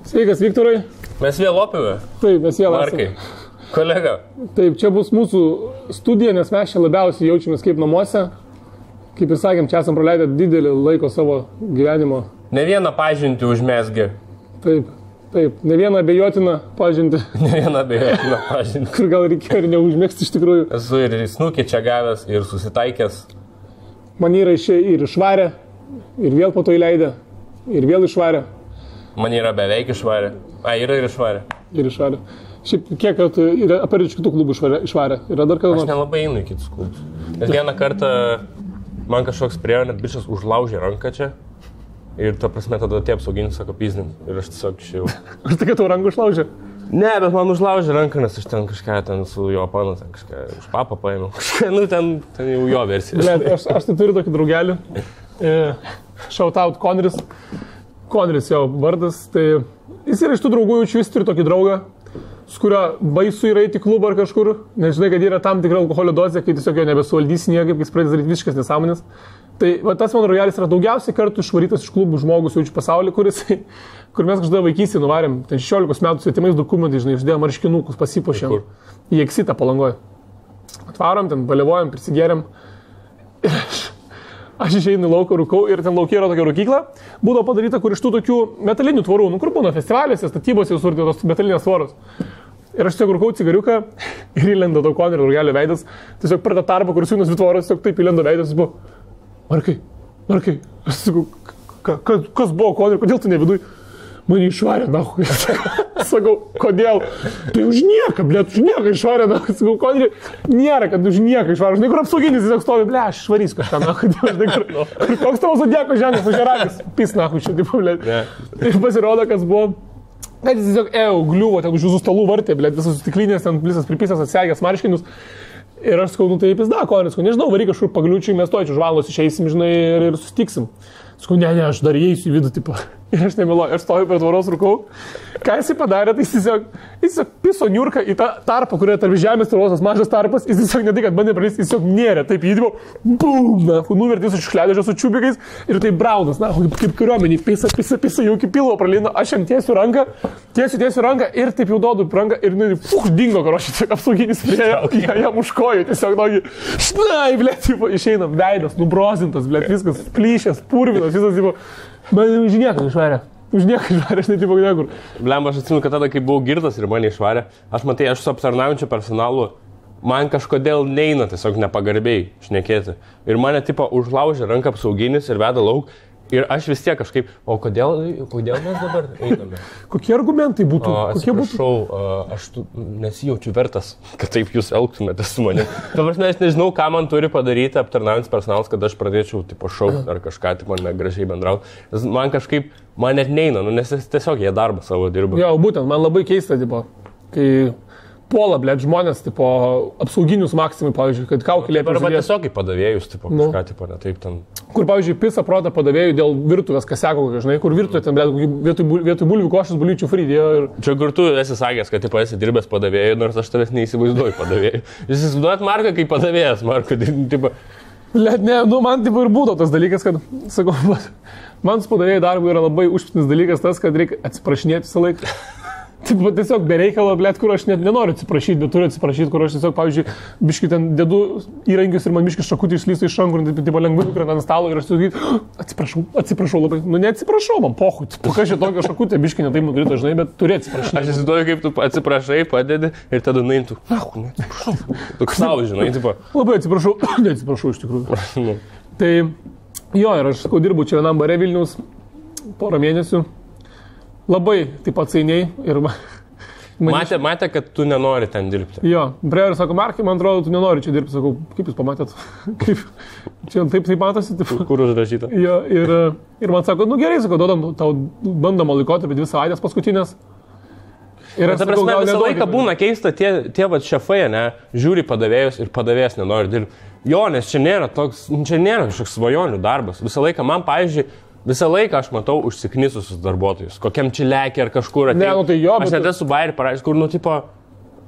Sveikas, Viktorai. Mes vėl opime. Taip, mes vėl Markai. Kolega. Taip, čia bus mūsų studija, nes mes čia labiausiai jaučiamės kaip namuose. Kaip ir sakėm, čia esam praleidę didelį laiko savo gyvenimo. Ne vieną pažintį užmesgė. Taip, taip, ne vieną abejotiną pažintį. Ne vieną abejotiną pažintį. Kur gal reikėjo ir neužmėgsti iš tikrųjų. Esu ir snukį čia gavęs, ir susitaikęs. Man yra ir išvarę, ir vėl po to įleidę, ir vėl išvarę. Man yra beveik išvarę. Yra ir išvarę. Ir išvarę. Šiaip kiek kartų yra apart iš kitų klubų išvarę? Yra dar kada nors? Aš nelabai einu į kitus klubus. Nes vieną kartą man kažkoks priejo, net bičias užlaužė ranką čia. Ir ta prasme tada tie apsauginis sako pizdim. Ir aš tiesiog išėjau. Ar tai, kad tau ranką užlaužė? Ne, bet man užlaužė ranką, nes aš ten kažką ten su jo panu, ten kažką už papą paėmiau. Kažką, nu ten jau jo versija. Ne, aš tai turiu tokį draugelį. Shout out Conris. Conris jo vardas. Tai jis yra iš tų draugų, jaučiu, jis turi tokį draugą, su kurio baisu yra eiti į klubą ar kažkur. Nežinai, kad yra tam tikra alkoholio dozė, kai tiesiog jo nebesuvaldys niekaip, kai jis pradės daryti visiškas nesąmonės. Tai va, tas mano draugelis yra daugiausiai kartų išvarytas iš klubų žmogus jaučiu pasaulyje, kur mes kažkada vaikystėje nuvarėm, ten 16 metų svetimais dokumentais, žinai, uždėjom marškinukus, pasipuošėm į Eksitą Palangoje. Atvarom, ten balevojam, prisigėrėm. Ir aš išeinu į lauką, rūkau ir ten laukia yra tokia rūkykla. Būdavo padaryta, kur iš tų tokių metalinių tvorų, nu kur būna festivalėse, statybose jau surti tos metalinės tvoros. Ir aš tiesiog rūkau cigariuką ir įlenda daug Conrio draugelio veidas. Tiesiog per tą tarpą, kur siūnas dvi tvoros, tiesiog taip įlenda veidas, jis buvo, Markai, aš sakau, kas buvo Conrio, kodėl tu ne viduj? Mane išvarė, nahui. Sakau, kodėl? Tai už nieką, blėt, už nieką išvarė, nahui. Sakau, Conrio, nėra, kad už nieką išvarė. Žinai, kur apsauginis tiesiog stovi, blė, aš išvarys kažką, nahui. Žinai, kur koks tavo zodieko ženklas, už žeragis, pis, nahui, čia, taip, blėt. Ir pasirodo, kas buvo, kad jis tiesiog gliuvo, ten už jūsų stalų vartė, blėt, visas stiklinės, ten visas pripisas atsegęs marškinius. Ir aš sakau, nu tai pizda, Conris, nežinau, varyk kažkur pagliučiai, mes to čia už valandos išeisim, žinai, ir susitiksim. Sakau, ne, aš dar įeisiu į vidų, tipo. Ir aš nemeluoju, aš stoju prie tvoros rūkau. Ką jisai padarė, tai jis tiesiog piso niurką į tą tarpą, kurioje tarp žemės tvoros mažas tarpas, jis tiesiog ne tai, kad bandė pralįsti, jis tiesiog nėrė, taip įdimo, bum, nuvertė su škledežio su čiubikais ir tai braunas, na, kaip kariuomenį, pisa, jau iki pilvo pralino, aš jam tiesiu ranką ir taip jau duodu ranką ir dingo, karoši, tiesiog apsauginis priejo, jam už kojų, tiesiog nagi, šnai, blėt, išeina veidas, nubrozintas, blėt, viskas, plyšęs, purvinas, visas, tipo, man už nieką išvarė. Už nieką išvarė, aš netipo niekur. Blemba, aš atsimenu, kad tada, kai buvau girtas ir mane išvarė, aš su aptarnaujančiu personalu, man kažkodėl neina tiesiog nepagarbiai šnekėti. Ir mane tipo užlaužė ranką apsauginis ir veda lauk. Ir aš vis tiek kažkaip, o kodėl mes dabar einame? Kokie argumentai būtų? Atsiprašau, aš nesijaučiu vertas, kad taip jūs elgtumėte su manimi. Dabar aš nežinau, ką man turi padaryti aptarnaujantis personalas, kad aš pradėčiau tipo šaukti ar kažką, tipo negražiai bendrauti. Man kažkaip, man net neina, nes tiesiog jie darbą savo dirba. Jo, būtent, man labai keista, tipo, kai puola, blėt, žmonės, tipo, apsauginius maksimai, pavyzdžiui, kad kaukė liepia. Arba tiesiog į padavėjus, tipo, kažką, tipo, ne taip ten. Kur, pavyzdžiui, pisa protą padavėjų dėl virtuvės kaseko, žinai, kur virtuvė ten, blėt, vietoj bulvių košės bulyčių frydėjo ir... Čia kur tu esi sakęs, kad, tipo, esi dirbęs padavėjų, nors aš tavęs neįsivaizduoju padavėjų. Jūs įsivaizduojat Marką kaip padavėjas, Marko, tipo... Blėt, ne, nu, man, tipo, ir būtų tas dalykas, kad, sakau, man su padavėjų darbu yra labai užptinis dalykas tas, kad reikia atsiprašinėti visą laiką. Taip, tiesiog bereikalo, blėt, kur aš net nenoriu atsiprašyti, bet turiu atsiprašyti, kur aš tiesiog, pavyzdžiui, biškai ten dedu įrankius ir man biškai šakutį išlysta iš rankų ir taip lengvai nukrenta ant stalo ir aš tiesiog atsiprašau labai. Nu, neatsiprašau, man pohui, kas čia tokio šakutė, biškai netaip nukrito, žinai, bet turi atsiprašyti. Aš įsivaizduoju, kaip tu atsiprašai, padedi ir tada nuimtų. Neatsiprašau. Toks savo, žinai, tipo. Labai atsiprašau, neatsiprašau iš tikrųjų. Tai jo, ir aš, sakau, dirbu čia vienam bare Vilniaus porą mėnesių. Labai taip atsainiai ir... Matė, kad tu nenori ten dirbti. Jo, Breveris sako, Markai, man atrodo, tu nenori čia dirbti. Sakau, kaip jūs pamatėt? Kaip? Čia taip matosi. Taip. Kur užrašyta? Jo, ir man sako, nu gerai, sakau, duodam tau bandomą laikotarpį 2 savaitės paskutinės. Ir ta prasme, visą laiką būna keista, tie vat šefai, ne, žiūri padavėjus ir padavėjas nenori dirbti. Jo, nes čia nėra kažkoks svajonių darbas. Visą laiką man, pavyzdžiui, visą laiką aš matau užsiknisusius darbuotojus, kokiam čilekį ar kažkur atėjo. Ne, nu tai jo, aš net esu bairį parašęs, kur, nu, tipo,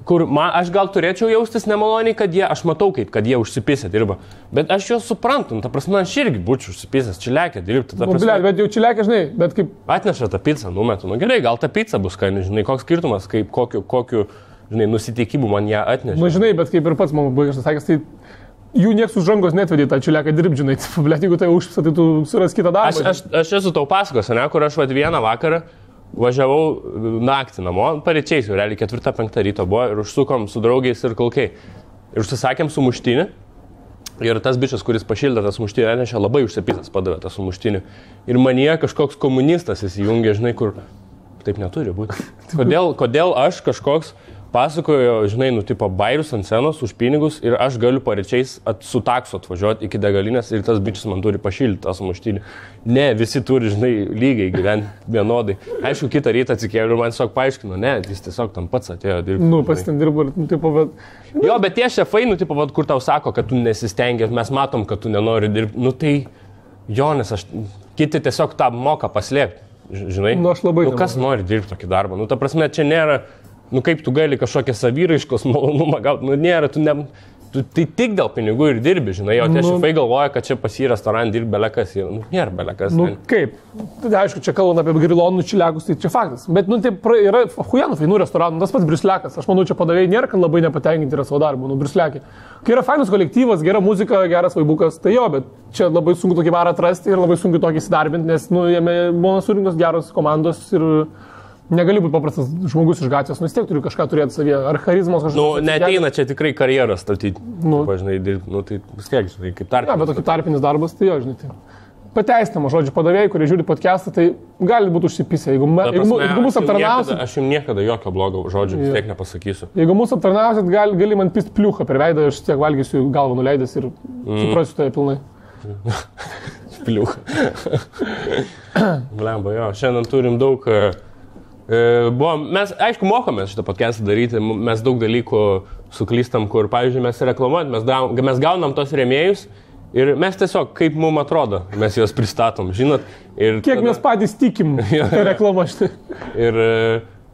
kur aš gal turėčiau jaustis nemaloniai, aš matau, kad jie užsipisę dirba. Bet aš juos suprantu, ta prasme, aš irgi būčiau užsipisęs, čiliakę dirbti. Bet jau čiliakę, žinai, bet kaip... Atneša tą pizzą, numetu. Nu gerai, gal ta pizza bus skani, žinai, koks skirtumas, kaip kokiu žinai, nusiteikimu man ją atneša. Na, žinai, bet kaip ir pats man baigas sakęs, tai jų nieks už rankos netvedė tą čiliaką dirbti, žinai, blėt, jeigu tai užpisa, tai tu suras kitą darbą. Aš esu tau pasakos, ne, kur aš vieną vakarą važiavau naktį namo, paryčiais jau, realiai 4-5 ryto buvo ir užsukom su draugiais ir kalkiai. Ir užsisakėm sumuštinį ir tas bičias, kuris pašildė tą sumuštinį, atnešė labai užsipisęs padavė tą sumuštinį. Ir manyje kažkoks komunistas įsijungė, žinai, kur taip neturi būti. Kodėl aš kažkoks pasakojo, žinai, tipo bairius ant scenos už pinigus ir aš galiu paryčiais su taksu atvažiuoti iki degalinės ir tas bičias man turi pašildyti tą sumuštinį. Ne, visi turi, žinai, lygiai gyventi vienodai. Aišku, kitą rytą atsikėliau ir man tiesiog paaiškino, ne, jis tiesiog tam pats atėjo dirbti. Nu, pas ten dirbo ir, tipo, bet... Jo, bet tie šefai, tipo, kur tau sako, kad tu nesistengi, mes matom, kad tu nenori dirbti. Tai, jo, nes kiti tiesiog tą moka paslėpti, žinai. Nu, aš labai... Kas nori dirbti tokį darbą? Ta prasme, čia nėra... Kaip tu gali kažkokią savyraiškos malonumą gauti, nėra, tu tai tik dėl pinigų ir dirbi, žinai, o tie šefai galvoja, kad čia pas į restoraną dirbi belekas, nėra belekas. Kaip? Tai aišku, čia kalbant apie grilonų čiliakus, tai čia faktas, bet, taip yra hujanų fainų restoranų, tas pats Briusliakas, aš manau, čia padavėjai nėra, kad labai nepatenkinti yra savo darbu, Briusliakė. Kai yra fainas kolektyvas, gera muzika, geras vaibukas, tai jo, bet čia labai sunku tokį varą atrasti ir labai sunku tokį įsidarbinti, nes, jame būna surinktos geros komandos ir... Negali būti paprastas žmogus iš gatvės, vis tiek turi kažką turėti savyje, ar charizmos kažkokios. Neateina čia tikrai karjerą statyti, pažinai, dirbti, tai vis tiek, žinai, kaip tarpinis. Ne, bet tokį tarpinis darbas, tai jo, žinai, tai pateistinama, žodžiu, padavėjai, kurie žiūri podcastą, tai gali būti užsipisę, jeigu mūsų aptarnausit. Aš jums niekada jokio blogo žodžio vis tiek nepasakysiu. Jeigu mūsų aptarnausit, gali man pist pliuchą per veidą, aš tiek valgysiu galvą nuleidęs ir suprasiu tai pilnai. Pliuchą. Blemba, jo, šiandien turim daug... Mes, aišku, mokomės šitą podcastą daryti, mes daug dalykų suklystam, kur, pavyzdžiui, mes reklamuojam, mes gaunam tos rėmėjus ir mes tiesiog, kaip mums atrodo, mes juos pristatom, žinot. Ir kiek mes patys tikim reklamą šitą. Ir,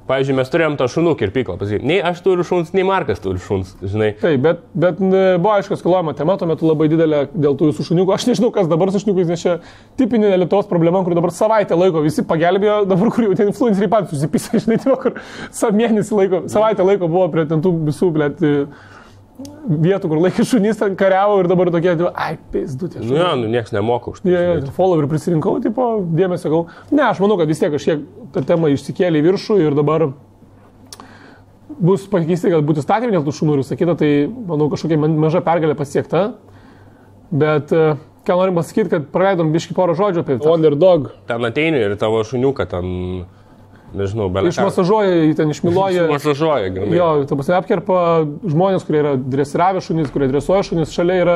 pavyzdžiui, mes turėjom tą šunų kirpyklą, pasakyti, nei aš turiu šuns, nei Markas turi šuns, žinai. Taip, bet buvo aišku, skalojama tema, tuo metu labai didelė dėl tų visų šuniukų. Aš nežinau, kas dabar su šuniukais, nes čia tipinė Lietuvos problema, kur dabar savaitę laiko visi pagelbėjo, dabar kur jau ten influenceriai patys susipisa, žinai, kur mėnesį laiko, savaitę laiko buvo prie ten tų visų, blėt, vietų, kur laikė šunys, ten kariavo ir dabar tokie, ai, pėsdutė. Nieks nemoka už tai. Followerį prisirinkau, tipo, dėmesio gal. Ne, aš manau, kad vis tiek kažkiek ta tema išsikėlė į viršų ir dabar bus pakeisti, kad būtų statymai dėl tų šunų ir visą kitą, tai, manau, kažkokia maža pergalė pasiekta. Bet, ką norim pasakyti, kad praleidom biškį porą žodžių apie tą Underdog. Ten ateini ir tavo šuniuką ten... Nežinau, belė. Išmasažuoja, ten išmiluoja. Išmasažuoja, gerai. Jo, ta prasme, apkerpa žmonės, kurie yra dresiravę šunys, kurie dresuoja šunys. Šalia yra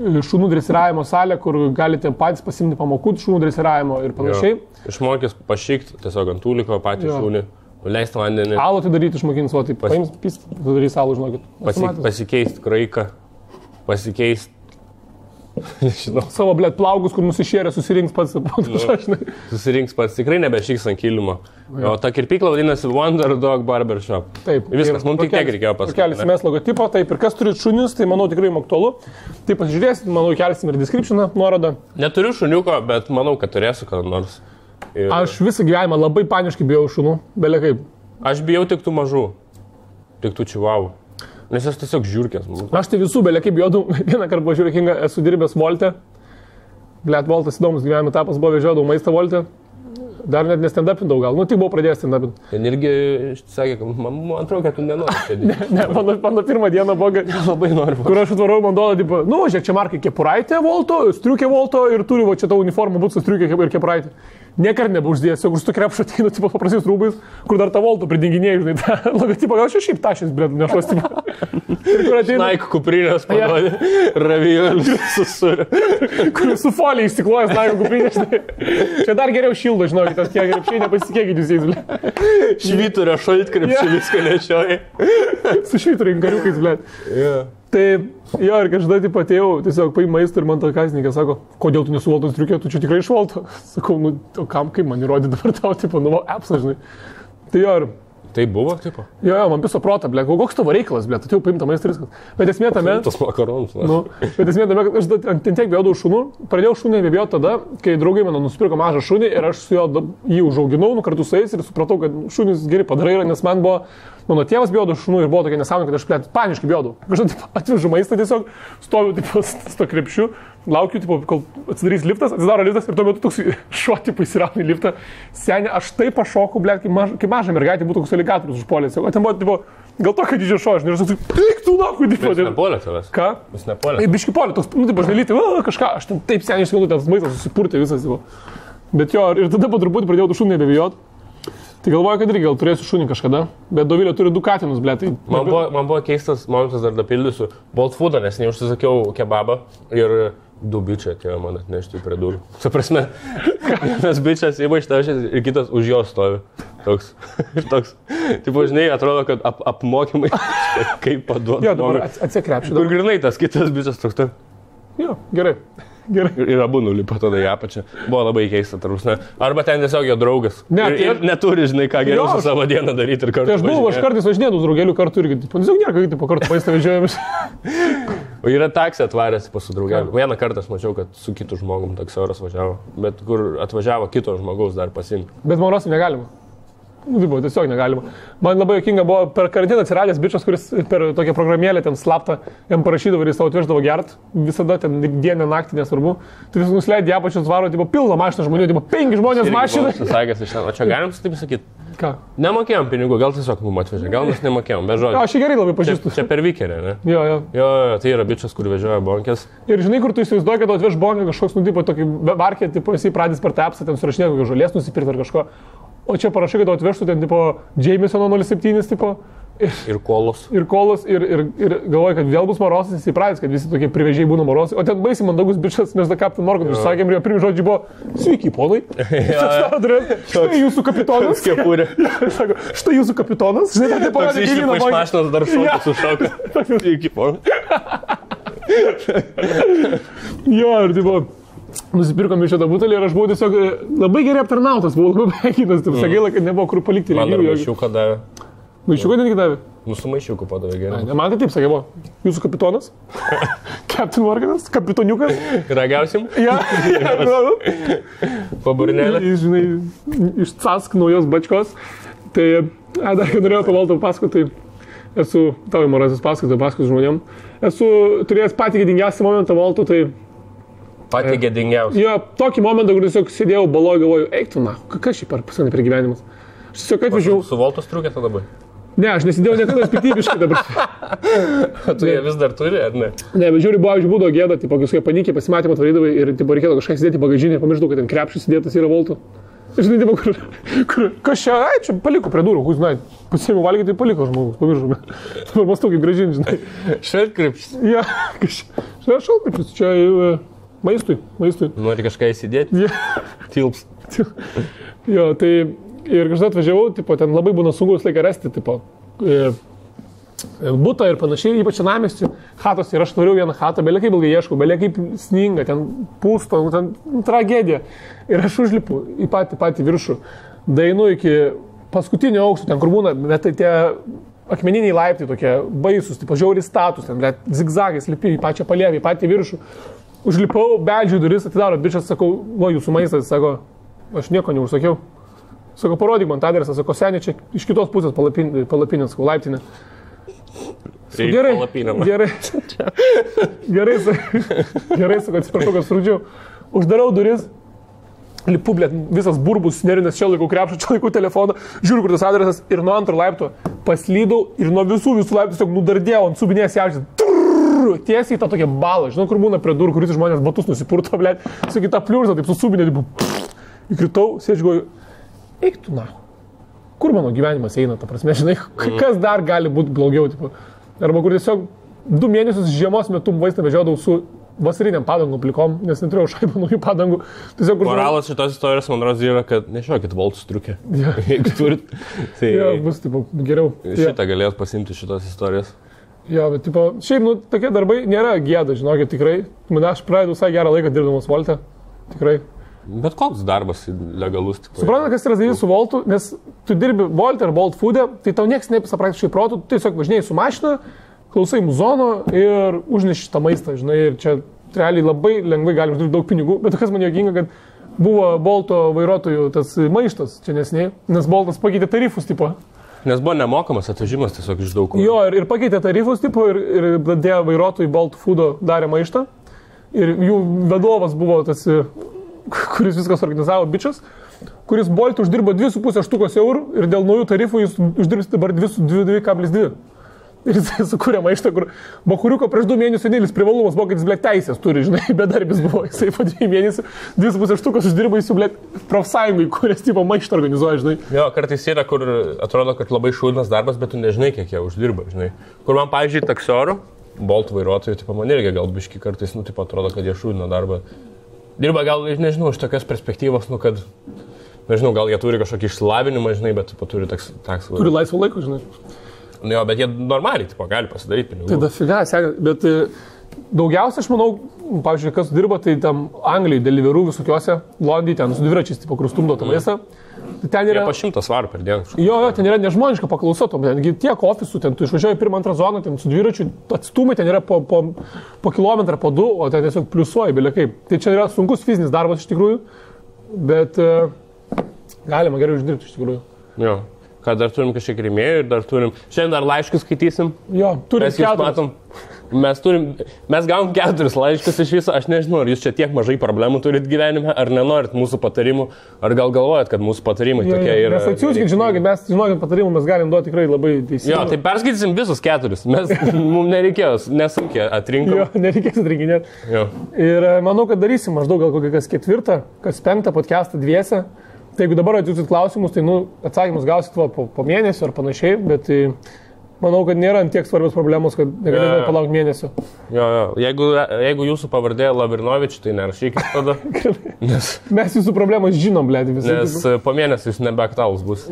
šunų dresiravimo salė, kur galite patys pasimti pamokų šunų dresiravimo ir panašiai. Išmokys pašykti tiesiog ant tūliko patį šunį, leisti vandenį. Alų tai daryti išmokins, o taip paims pist, darys alų, žinokit. Pasikeisti kraiką, pasikeisti. Žinau. Savo, blėt, plaugus, kur nusišėrė, susirinks pats. Susirinks pats, tikrai nebešiks ant kilimo. O ta kirpykla vadinasi Underdog Barbershop. Taip. Viskas, mums tik tiek reikėjo pasakyti. Kelsim mes logotipo, taip, ir kas turi šunius, tai manau tikrai aktualu. Tai pasižiūrėsit, manau, kelsim ir descriptioną, nuorodą. Neturiu šuniuko, bet manau, kad turėsiu kada nors. Aš visą gyvenimą labai paniškai bijau šunų, belė kaip. Aš bijau tik tų mažų, tik tų čivavų. Nes aš tiesiog žiūrkės. Aš tai visų, belė kaip bijodau, vieną kartą buvo žiūrėkinga, esu dirbęs Volte. Blėt, Voltas įdomus gyvenimo etapas, buvo vežiodau maistą Volte. Dar net nestendapindau gal, tik buvau pradėjęs stendapinti. Ten irgi sakė, kad man atrodo, kad tu nenori. Ne, mano pirmą dieną buvo, labai noriu. Kur aš atvarau, man duoda, tipo, žiūrėk, čia Markai kepuraitė Volto, striukė Volto ir turi va čia tau uniformą būt su striukė ir kepuraitė. Niekart nebeuždėjęs, jeigu su to krepšo ateinu, tipo, paprastais rūbais, kur dar tą Volto pridinginėjai, žinai, tą logotipą, gal šiaip tašės, blėt, nešos, tipo. Naik kuprinės parodė, ravijolius susurė. Kur su folija išsiklojas Naik kuprinės, žinai. Čia dar geriau šildo, žinokit, tas tie krepšiai nepasitikėkit jūs jais, blėt. Švyturio šaltkrepšį viską nešioja. Su švyturio inkariukais, blėt. Tai jo, ir kažkada taip atėjau, tiesiog paim maistą ir man ta kasininkė sako, kodėl tu nesu Voltos striukė, tu čia tikrai iš Volto. Sakau, o kam, kaip man įrodė dabar tau, tipo, apsą, žinai. Tai jo, ir Tai buvo, tipo? Jo, man viso protą, ble, koks tavo reikalas, ble, tu jau paimta maistą viskas. Bet esmė tame... Tas makaronus. Nu, bet esmė tame, kad aš ten tiek bijodavau šunų, pradėjau šunį nebijoti tada, kai draugai mano nusipirko mažą šunį ir aš su juo jį užauginau, kartu su jais ir supratau, kad šunys geri padarai, nes man buvo... Mano tėvas bijodavo šunų ir buvo tokia nesąmonė, kad aš paniškai bijodavau. Kažkaip atvežu maistą tiesiog, stoviu tipo, su to krepšiu, laukiu, tipo, kol atsidarys liftas, atsidaro liftas ir tuo metu toks šuo tipo įsirauna į liftą. Senė, aš taip pašokau, ble, kai maža mergaitė būtų koks aligatorius užpuolęs. O ten buvo, tipo, gal tokio didžio šuo, aš nežinau, eik tu nakui, tipo. Jis nepolė tavęs. Ką? Jis nepolė. Biški polė, toks, nu, tipo, žnelyti, kažką, aš ten taip seniai išskandau, ten maistas susipurtė visas, tipo. Bet jo, ir tada po truputį pradėjau tų šunį nebebijot. Tai galvoju, kad irgi gal turėsiu šunį kažkada, bet Dovilė turi 2 katinus, ble. Tai... Man buvo keistas momentas, dar dapildysiu, Bolt Foodą, nes neužsisakiau kebabą ir 2 bičiai atėjo man atnešti prie durų. Su prasme, vienas bičias įma iš tavęs ir kitas už jo stovi. Toks. Tipo, žinai, atrodo, kad apmokymai kaip paduoti. Jo, dabar atsikrepšiu. Kur grinai tas kitas bičias toks taip. Jo, gerai. Ir abu nulipo tada į apačią. Buvo labai keista, tarusne. Arba ten tiesiog jo draugas. Ne, ir neturi, žinai, ką geriau su savo dieną daryti ir kartu. Tai aš kartais važinėdavau su draugeliu kartu irgi. Tiesiog nėra, kaip tipo kartu maistą vežiojamės. O yra taksė atvaręs su draugeliu. Vieną kartą aš mačiau, kad su kitu žmogum taksiauras važiavo. Bet kur atvažiavo kito žmogaus dar pasimti. Bet Maurosim negalima. Nu, tai buvo, tiesiog negalima. Man labai jokinga buvo per karantiną atsiradęs bičias, kuris per tokią programėlę ten slaptą jam parašydavo ir jis tau atveždavo gert. Visada ten dieną, naktį, nesvarbu. Tai vis nusileidė apačios varo, tipo, pilna mašina žmonių, tipo, 5 žmonės mašina. O čia galim taip sakyti? Ką? Nemokėjom pinigų, gal tiesiog mums atvežė, gal mes nemokėjom, be žodžių. Aš gerai labai pažįstu. Čia per Vikerį, ne? Jo, tai yra bičias, kur vežioja bonkės. Ir žinai, kur tu įsivaizduoji, kad atveš bonkę kažkoks, nu, tipo, tokį varkė, tipo, jisai pradės per tą apsą, ten surašinė kokį žolės nusipirkti ar kažko. O čia parašai, kad atvežtų ten, tipo, Jamesono 07, tipo. Ir kolos. Ir galvoju, kad vėl bus Morosas, jis įpratęs, kad visi tokie privežiai būna Morosai. O ten baisiai mandagus bičias, mes da Captain Morgan išsakėm ir jo pirmi žodžiai buvo, sveiki, ponai. Štai jūsų kapitonas. Kepurė. Sako, štai jūsų kapitonas. Žinai, tai parodė, išlipa iš mašinos dar šoka sušauka. Sveiki, ponai. Jo, ir tipo... Nusipirkom iš šitą butelį ir aš buvau tiesiog labai gerai aptarnautas, buvau labai pėkinas, taip gaila, kad nebuvo kur palikti. Man dar maišiuką davė. Maišiuką netgi davė? Su maišiuku padavė gerai. Man tai taip sakė, buvo. Jūsų kapitonas, Captain Morganas, kapitoniukas. Ragausim? Ja. Paburinėlė. Žinai, iš Cask naujos bačkos. Tai, dar kai norėjau pavaltą pasakoti, tai esu, tavo Morasas pasakoti žmonėm, esu turėjęs patį gėdingiausią momentą valtų, tai... Patį gėdingiausią. Jo, tokį momentą, kur tiesiog sėdėjau baloj, galvoju, eik tu, na, kas šį pasakė per gyvenimas. Aš tiesiog atvežiau... Su Voltos triukė tada dabar? Ne, aš nesidėjau niekada piktybiškai dabar. Tu jie vis dar turi, ar ne? Ne, bet žiūri, būdavo gėda, tipo, kai panikė pasimatymą atvarydavai ir tipo, reikėdavo kažką sėdėti bagažinį, pamiršdavau, kad ten krepšys sėdėtas yra Voltų. Žinai, tipo, kur kas čia, čia paliko prie durų, kur, žinai, pasiėmiau valgyti, tai paliko žmogus, pamiršau. Dabar mąstau, kaip gražinti, žinai. Šaltkrepšys. Ja, šaltkrepšys, čia... Maistui. Nori kažką įsidėti? Tilps. Jo, tai ir kažkas atvažiavau, tipo, ten labai būna sunku visą laiką rasti, tipo, butą ir panašiai, ypač senamiestį, chatos, ir aš tvariau vieną chatą, belia kaip ilgai ieškau, belia kaip sninga, ten pūsto, ten tragedija. Ir aš užlipu į patį viršų, dainu iki paskutinio aukšto, ten kur būna, bet tai tie akmeniniai laiptai tokie baisus, tipo, žiauriai status, ten, zigzagais lipi į pačią palėvį, į patį viršų. Užlipau, beldžiu duris, atidaro bičias, sakau, jūsų maistas, sako, aš nieko neužsakiau. Sako, parodyk man tą adresą, sako, senė, čia iš kitos pusės palapinės, sakau, laiptinė. Gerai, sako, atsiprašau, kad surūdžiau. Uždarau duris, lipu, blėt, visas burbus, nerinės, čia laikau krepšą, čia laikau telefoną, žiūriu, kur tas adresas ir nuo antro laipto paslydau ir nuo visų laiptų tiesiog nudardėjau ant subinės jaučias. Tiesiai į tą tokią balą, žinau, kur būna prie durų, kuris žmonės batus nusipurto, blėt, su kita pliurzą, taip susubinė, įkritau, sėdžiu, eik tu na, kur mano gyvenimas eina, ta prasme, žinai, kas dar gali būti blogiau, tipo. Arba kur tiesiog 2 mėnesius žiemos metu vaistą vežiodavau su vasariniam padangom plikom, nes neturėjau šaibų naujų padangų. Tiesiog, moralas šitos istorijos, man rodos, yra, kad nešiokit Voltus triukę. Ja. Jeigu turit, tai ja, bus, tipo, geriau. Šitą galėt pasimti šitos istorijos. Jo, bet, tipo, šiaip, nu, tokie darbai nėra gėda, žinokit, tikrai. Aš praeidau visai gerą laiką dirbdamas Volte, tikrai. Bet koks darbas legalus. Supranta, kas yra daryti su Voltu, nes tu dirbi Volt ar Bolt Food'e, tai tau niekas nepisa praktiškai protų, tu tiesiog važinėjai su mašina, klausai muzono ir užneši tą maistą, žinai, ir čia realiai labai lengvai gali uždirbti daug pinigų, bet kas man juokinga, kad buvo Bolto vairuotojų tas maištas čia nesiniai, nes Boltas pakeitė tarifus tipo. Nes buvo nemokamas atvežimas tiesiog iš daug. Jo, ir pakeitė tarifus tipo ir pradėjo vairuotojai Bolt Food'o darė maištą. Ir jų vadovas buvo tas, kuris viskas organizavo, bičias, kuris Bolt uždirbo 2,5 štukos eurų ir dėl naujų tarifų jis uždirbs dabar 2,2. Ir jis sukūrė maištą, kur Bakuriuko prieš 2 mėnesių vienintelis privalumas buvo, kad jis, blėt, teisės turi, žinai, bedarbis buvo. Jisai po 2 mėnesių 2,5 štukos uždirbo, jis jau, blėt, profsąjungai, kuris tipo maištą organizuoja, žinai. Jo, kartais yra, kur atrodo, kad labai šūdinas darbas, bet tu nežinai, kiek jie uždirba, žinai. Kur man, pavyzdžiui, taksiorų, Bolt vairuotojų, tipo, man irgi gal biški kartais, nu, tipo, atrodo, kad jie šūdina darbą. Dirba gal, nežinau, iš tokios perspektyvos, nu, kad, nežinau, gal jie turi kažkokį išsilavinimą, žinai, bet, tipo, turi taksą. Turi laisvo laiko, žinai. Jo, bet jie normaliai, tipo, gali pasidaryti pinigų. Tai dafiga, bet daugiausia, aš manau, pavyzdžiui, kas dirba, tai tam Anglijai, Deliveroo visokiuose, Londai, ten su dviračiais, tipo, kur stumdo tą maistą. Ten yra... Jie po 100 svarų per dieną. Jo, ten yra nežmoniška paklausa, tengi tiek ofisų, ten tu išvažiuoji 1-2 zoną, ten su dviračiu, atstumai ten yra po kilometrą, po 2, o ten tiesiog pliusuoji, belia kaip. Tai čia yra sunkus fizinis darbas iš tikrųjų, bet galima gerai uždirbti iš tikrųjų. Jo. Kad dar turim kažkiek rėmėjų ir dar turim... Šiandien dar laiškus skaitysim. Jo, turim 4. Mes gavom 4 laiškus iš viso. Aš nežinau, ar jūs čia tiek mažai problemų turit gyvenime, ar nenorit mūsų patarimų, ar gal galvojat, kad mūsų patarimai tokie yra... Mes atsiųskit, žinokit, patarimų mes galim duoti tikrai labai teisingai. Jo, tai perskaitysim visus 4. Mums nereikėjo, nesunkiai atrinkom. Jo, nereikės atrinkinėti. Jo. Ir manau, kad darysim maždaug gal kokį kas 4, kas 5 podcastą dviese. Tai jeigu dabar atsiųsit klausimus, tai atsakymus gausit po mėnesio ar panašiai, bet manau, kad nėra tiek svarbios problemos, kad negalime palaukti mėnesio. Jo. Jeigu jūsų pavardė Lavrinovič, tai nerašykit tada. Mes jūsų problemas žinom, blėdi, visi. Nes po mėnesio jūs nebeaktualus bus.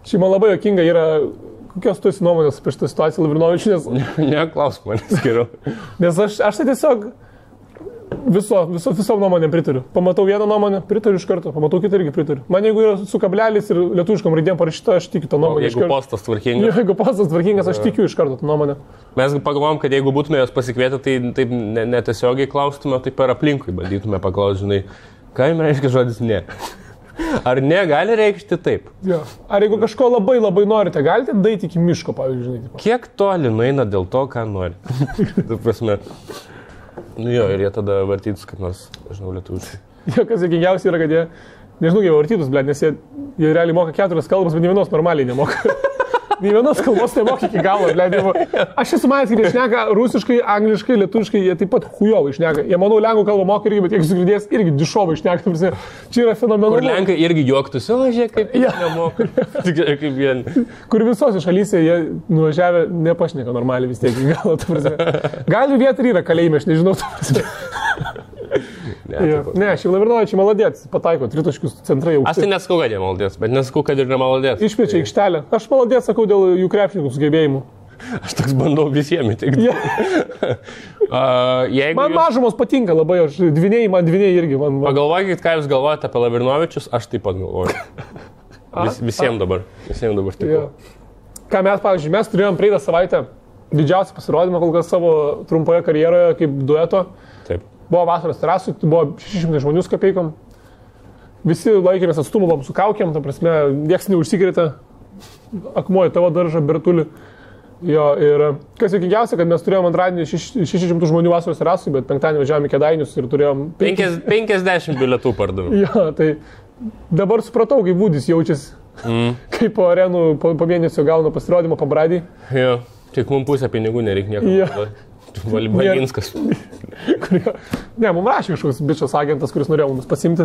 Šiaip man labai jokinga yra, kokios tu esi nuomonės apie šitą situaciją, Lavrinovič, nes... Neklausk manęs geriau. Nes aš tai tiesiog... Visom nuomonėm pritariu. Pamatau vieną nuomonę, pritariu iš karto, pamatau kitą irgi pritariu. Man jeigu yra su kablelis ir lietuviškam raidėm parašyta, aš tikiu tą nuomonę. Jeigu postas tvarkingas. Jeigu postas tvarkingas, aš tikiu iš karto tą nuomonę. Mes pagalvom, kad jeigu būtume jos pasikvietę, tai taip netiesiogiai klaustume, tai per aplinkui bandytume paklausti, žinai, ką jums reiškia žodis ne. Ar ne gali reikšti taip? Jo. Ar jeigu kažko labai labai norite, galite daeiti iki miško, pavyzdžiui. Kiek toli nueina dėl to, ką nori? Tu prasme. Nu jo, ir jie tada vartytus, kad nors, žinau, lietuviškai. Jo, kas juokingiausia yra, kad jie, nežinau, jie vartytus, blėt, nes jie realiai moka 4 kalbas, bet nė vienos normaliai nemoka. Nė vienos kalbos nemoka iki galo, blėt. Aš esu manęs, kad jie šneka rusiškai, angliškai, lietuviškai, jie taip pat chujovai šneka. Jie, manau, lenkų kalbą moka irgi, bet jeigu sugirdės, irgi dišovai šneka. Čia yra fenomenalu. Kur lenkai irgi juoktųsi, o žiūrėk, kaip jie nemoka. Kaip jie. Kur visose šalyse jie nuvažiavę nepašneka normaliai vis tiek iki galo. Gali vieta yra kalėjime, aš nežinau. Ne, šiaip Lavrinovičiai maladėts, pataiko, tritaškius centrai aukštai. Aš tai nesakau, kad jie maladėts, bet nesakau, kad ir nemaladėts. Išplečia aikštelę. Aš maladėts sakau dėl jų krepšininkų sugebėjimų. Aš toks bandau visiems įtikti. Man mažumos patinka labai, aš man dviniai irgi. Pagalvokit, ką jūs galvojate apie Lavrinovičius, aš taip pat galvoju. Visiems dabar taip. Ką mes, pavyzdžiui, mes turėjom praeitą savaitę didžiausią pasirodymą kol kas savo trumpoje karjeroje kaip dueto. Taip. Buvo vasaros terasų, buvo 600 žmonių su kapeikom. Visi laikėmės atstumą, buvom su kaukiam, ta prasme, nieks neužsikrėtė. Akmuoja tavo daržą, Bertulį. Jo, ir kas juokingiausia, kad mes turėjom antradienį 600 žmonių vasaros terasų, bet penktadienį važiavome į Kėdainius ir turėjom... 50 bilietų pardavėm. Jo, tai dabar supratau, kaip Vūdis jaučiasi. Kaip po arenų po mėnesio gauna pasirodymą pabradį. Jo, tik mums pusę pinigų nereikia nieko. Valinskas. Ne, mums rašė kažkoks bičias agentas, kuris norėjo mums pasimti.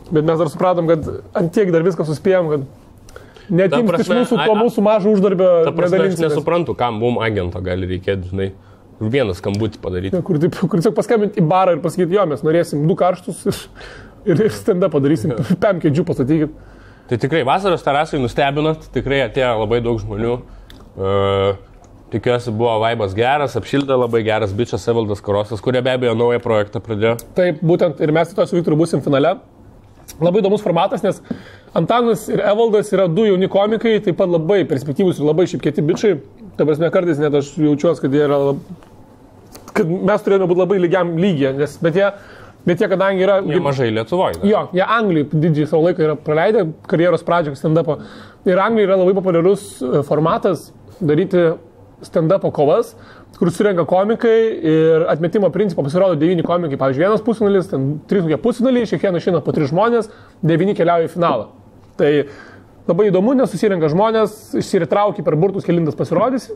Bet mes dar supratom, kad ant tiek dar viską suspėjom, kad netimti iš mūsų to mūsų mažo uždarbio. Ta prasme, aš nesuprantu, kam mums agento gali reikėti, žinai, vieną skambutį padaryti. Kur tiesiog paskambinti į barą ir pasakyti, jo, mes norėsim 2 karštus ir stand-up padarysim, 5 kėdžių pastatykit. Tai tikrai vasaros terasai nustebinat, tikrai atėjo labai daug žmonių. Tikiuosi, buvo vaibas geras, apšildė labai geras bičias Evaldas Karosas, kurie be abejo naują projektą pradėjo. Taip, būtent ir mes to su Viktoru būsim finale. Labai įdomus formatas, nes Antanas ir Evaldas yra du jauni komikai, taip pat labai perspektyvūs ir labai šiaip kieti bičiai. Ta prasme, kartais net aš jaučiuosi, kad mes turėjome būti labai lygiam lygiai, bet jie kadangi yra... Jie mažai Lietuvoje. Jo, jie Anglijai didžiai savo laiką yra praleidę karjeros pradžią stand-upo. Ir Anglijai yra labai populiarus formatas daryti stand-upo kovas, kur surenka komikai ir atmetimo principo pasirodo 9 komikai. Pavyzdžiui, vienas pusfinalis, 3 pusfinaliai, kiekvieną išeina po 3 žmonės, 9 keliauja į finalą. Tai labai įdomu, nes susirenka žmonės, išsiritraukia per burtus, kelintas pasirodys.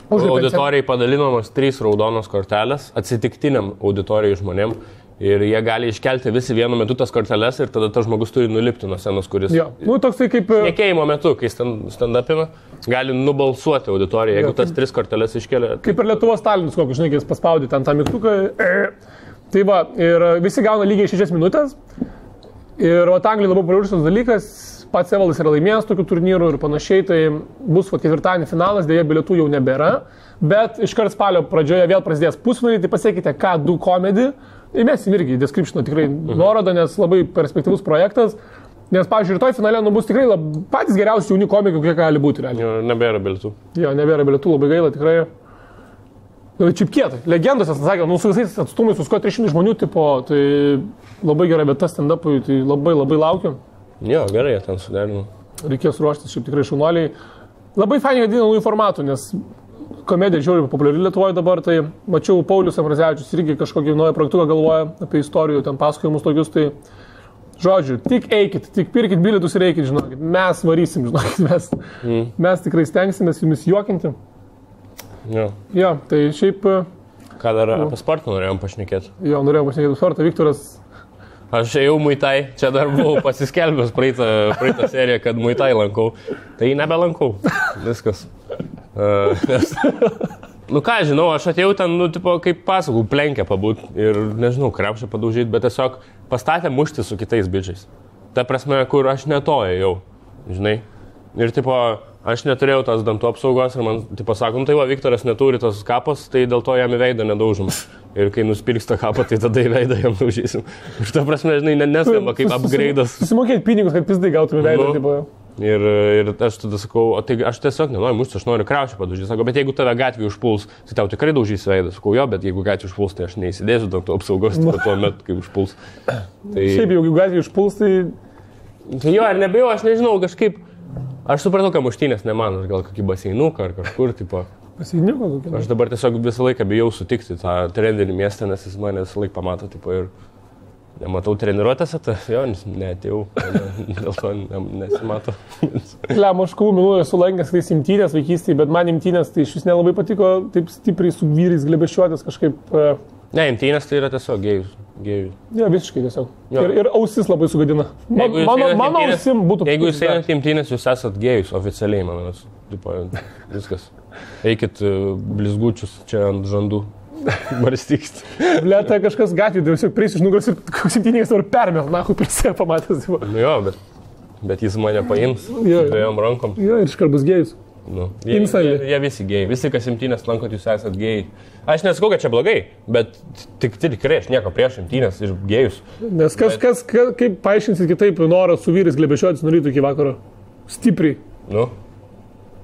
Auditorijai padalinamos 3 raudonos kortelės atsitiktiniam auditorijai žmonėm. Ir jie gali iškelti visi vienu metu tas korteles ir tada tas žmogus turi nulipti nuo scenos, kuris... Jo, toksai kaip... Šnekėjimo metu, kai stand-upina, gali nubalsuoti auditoriją, jeigu tas 3 korteles iškelia. Kaip ir Lietuvos Stalinas, kokį, žinai, jis paspaudė ten tą mygtuką. Tai va, ir visi gauna lygiai 6 minutės. Ir Anglijai labai populiarus dalykas, pats Evaldas yra laimėjęs tokių turnyrų ir panašiai, tai bus ketvirtadienį finalas, dėja bilietų jau nebėra. Bet iškart spalio pradžioje vėl prasidės pusfinaliai, tai pasiekite K2 komedį. Įmesim irgi į descriptioną tikrai nuorodą, nes labai perspektyvus projektas. Nes, pavyzdžiui, rytoj finale bus tikrai patys geriausi jauni komikai, kokie gali būti. Jo, nebėra bilietų. Jo, nebėra bilietų, labai gaila, tikrai. Čiap kietai. Legendos, aš sakė, su visais atstumais, su 300 žmonių, tipo, tai labai gera vieta stand-upui, tai labai laukiu. Jo, gerai, ten suderinu. Reikės ruoštis, šiaip tikrai šaunuoliai. Labai fainai vadina naujų formatų, nes komedija žiauriai populiari Lietuvoje dabar, tai mačiau Paulius Ambrazevičius irgi kažkokį naują projektuką galvoja apie istorijų, ten pasakojimus tokius, tai žodžiu, tik eikit, tik pirkit bilietus ir eikit, žinokit, mes varysim, žinokit, mes tikrai stengsimės jumis juokinti. Jo, tai šiaip... Ką dar apie sportą norėjom pašnekėti? Jo, norėjom pašnekėti apie sportą, Viktoras... Aš ėjau Muay-Thai, čia dar buvau pasiskelbęs praeitą seriją, kad Muay-Thai lankau, tai nebelankau, viskas. Nu ką, žinau, aš atėjau ten, tipo, kaip pasakau, plenkę pabūt ir, nežinau, krepšę padaužyti, bet tiesiog pastatė mušti su kitais bičiais. Ta prasme, kur aš netojau, žinai. Ir, tipo, aš neturėjau tos dantų apsaugos ir man, tipo, sakom, tai va, Viktoras neturi tos kapos, tai dėl to jam į veidą nedaužom. Ir kai nuspirks tą kapą, tai tada į veidą jam daužysim. Ir ta prasme, žinai, neskamba kaip upgrade'as. Susimokėti pinigus, kad pizdai gautum į veidą, tipo. Ir aš tada sakau, o tai aš tiesiog nenoriu mušti, aš noriu krepšį padaužyti. Sako, bet jeigu tave gatvį užpuls, tai tau tikrai daužys veidą. Sakau, jo, bet jeigu gatvį užpuls, tai aš neįsidėsiu dantų apsaugos tuo metu, kai užpuls. Tai... Šiaip, jeigu gatvį užpuls, tai... Tai jo, ar nebijau, aš nežinau, kažkaip... Aš supratau, kad muštynės ne man, gal kokį baseinuką ar kažkur, tipo... Baseinuką kokį? Aš dabar tiesiog visą laiką bijau sutikti tą trendinį miestą, nes jis mane visą laiką pamato, tipo, ir... Nematau treniruotėse, tai jo, neatėjau, dėl to nesimato. Lem, aš kovų minų esu lankęs tais imtynės vaikystėje, bet man imtynės tai iš vis nelabai patiko taip stipriai su vyrais glebeščiuotis kažkaip... Ne, imtynės tai yra tiesiog gėjus. Ne, visiškai tiesiog. Ir ausis labai sugadina. Mano ausim būtų... Jeigu jūs einat imtynės, jūs esat gėjus oficialiai, manas. Viskas. Eikit blizgučius čia ant žandų. Barstykit. Blėta kažkas gatvį, tiesiog prieis iš nugaros ir koks imtynės dabar permės, nahu, prisė pamatęs. Nu jo, bet jis mane paims dviejom rankom. Jo, ir iškart bus gėjus. Nu, jie visi gėjai. Visi, kas imtynės lankot, jūs esat gėjai. Aš nesakau, kad čia blogai, bet tikrai aš nieko prieš imtynės ir gėjus. Nes kaip paaiškinsit kitaip norą su vyrais glebešiotis nuo ryto iki vakaro? Stipriai. Nu.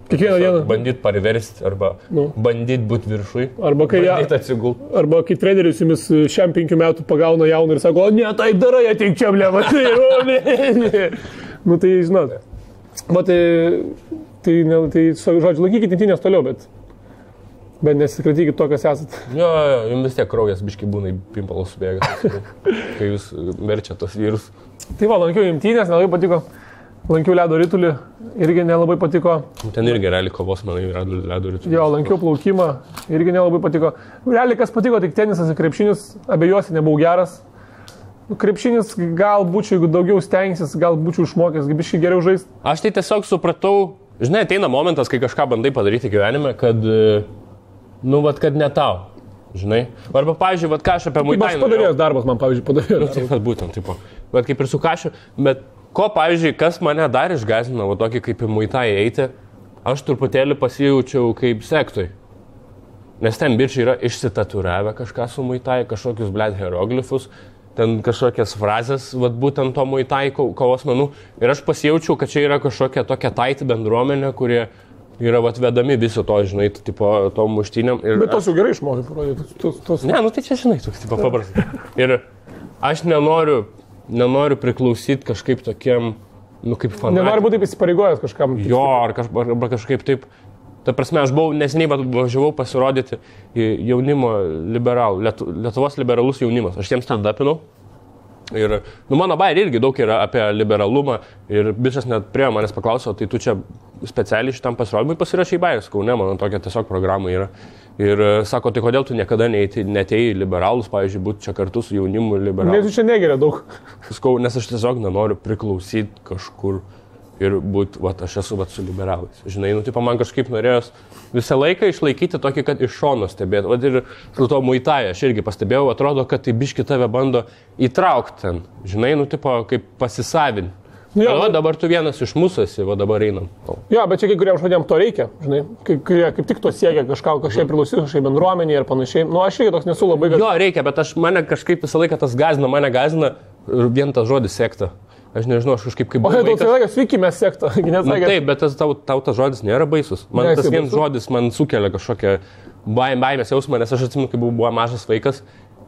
Kiekvieną dieną. Bandyt pariversti arba bandyt būti viršui. Arba kai atsigult. Arba kai treneris jumis šiam 5 metų pagauna jauną ir sako, o ne, taip darai, ateik čia, bleva. Nu tai, žinot. Tai žodžiu, laikykit imtynės toliau, bet nesikratykit to, kas esat. Jo, jums vis tiek kraujas biškai būna į pimpalus subėga, kai jūs verčia tos vyrus. Tai va, lankiau imtynės, nelabai patiko. Lankiau ledo ritulį, irgi nelabai patiko. Ten irgi realiai kovos, manai, ledo ritulį. Jo, lankiau plaukimą, irgi nelabai patiko. Realiai kas patiko, tik tenisas ir krepšinis, abejosi nebuvau geras. Krepšinis gal būčiau, jeigu daugiau stengsis, gal būčiau išmokęs, biškai geriau žaisti. Aš tai tiesiog supratau, žinai, ateina momentas, kai kažką bandai padaryti gyvenime, kad, kad ne tau, žinai. Arba, pavyzdžiui, ką aš apie Muay-Thai. Aš padarėjęs darbas, man, pavyzdžiui, padarėjęs. Taip, būtent, taip. Bet kaip ir su Kašiu, bet ko, pavyzdžiui, kas mane dar išgąsdino, tokį kaip į Muay-Thai eiti, aš truputėlį pasijaučiau kaip sektoj. Nes ten bičiai yra išsitaturavę kažką su muitai, kažkokius, blėt, hieroglifus, ten kažkokias frazės, vat, būtent to muitai kovos menų. Ir aš pasijaučiau, kad čia yra kažkokia tokia taiti bendruomenė, kurie yra vat, vedami viso to, žinai, tipo, tom muštynėm. Bet tos jau gerai išmokai parodyti. Ne, nu tai čia, žinai, toks, tipo, paprastas. Ir aš nenoriu priklausyti kažkaip tokiem, nu, kaip fanatikam. Nenoriu būti įsipareigojęs kažkam. Jo, arba kažkaip taip. Ta prasme, aš buvau neseniai važiavau pasirodyti jaunimo liberalų, Lietuvos liberalus jaunimas. Aš jiems stand-upinau. Ir, nu, mano bairė irgi daug yra apie liberalumą. Ir bičias net prie manęs paklausė, tai tu čia specialiai šitam pasirodymui pasirašai bairę. Sakau, ne, mano tokia tiesiog programa yra. Ir sako, tai kodėl tu niekada netėjai liberalus, pavyzdžiui, būti čia kartu su jaunimu liberalus. Nes tu čia negeria daug. Sakau, nes aš tiesiog nenoriu priklausyti kažkur. Ir būti, va, aš esu, va, su liberalais. Žinai, nu, tipo, man kažkaip norėjos visą laiką išlaikyti tokį, kad iš šono stebėti. Va, ir su to muitai aš irgi pastebėjau, atrodo, kad tai biški tave bando įtraukti ten. Žinai, nu, tipo, kaip pasisavinti. Nu, va, dabar tu vienas iš mūsų esi, va, dabar einam. Jo, bet čia kai kuriems žmonėms to reikia, žinai, kurie kaip tik to siekia kažkaip priklausyti kažkaip bendruomeniai ir panašiai. Nu, aš irgi toks nesu labai... Jo, reikia, bet mane kažkaip visą laiką tas mane gazina vien tas žodis sekta. Aš nežinau, aš kažkaip kaip... O, daug sakė, sveiki, mes sekta. Nu, taip, bet tau tas žodis nėra baisus. Man tas vienas žodis man sukelia kažkokią baimės jausmą, nes aš atsimenu, kai buvau mažas vaikas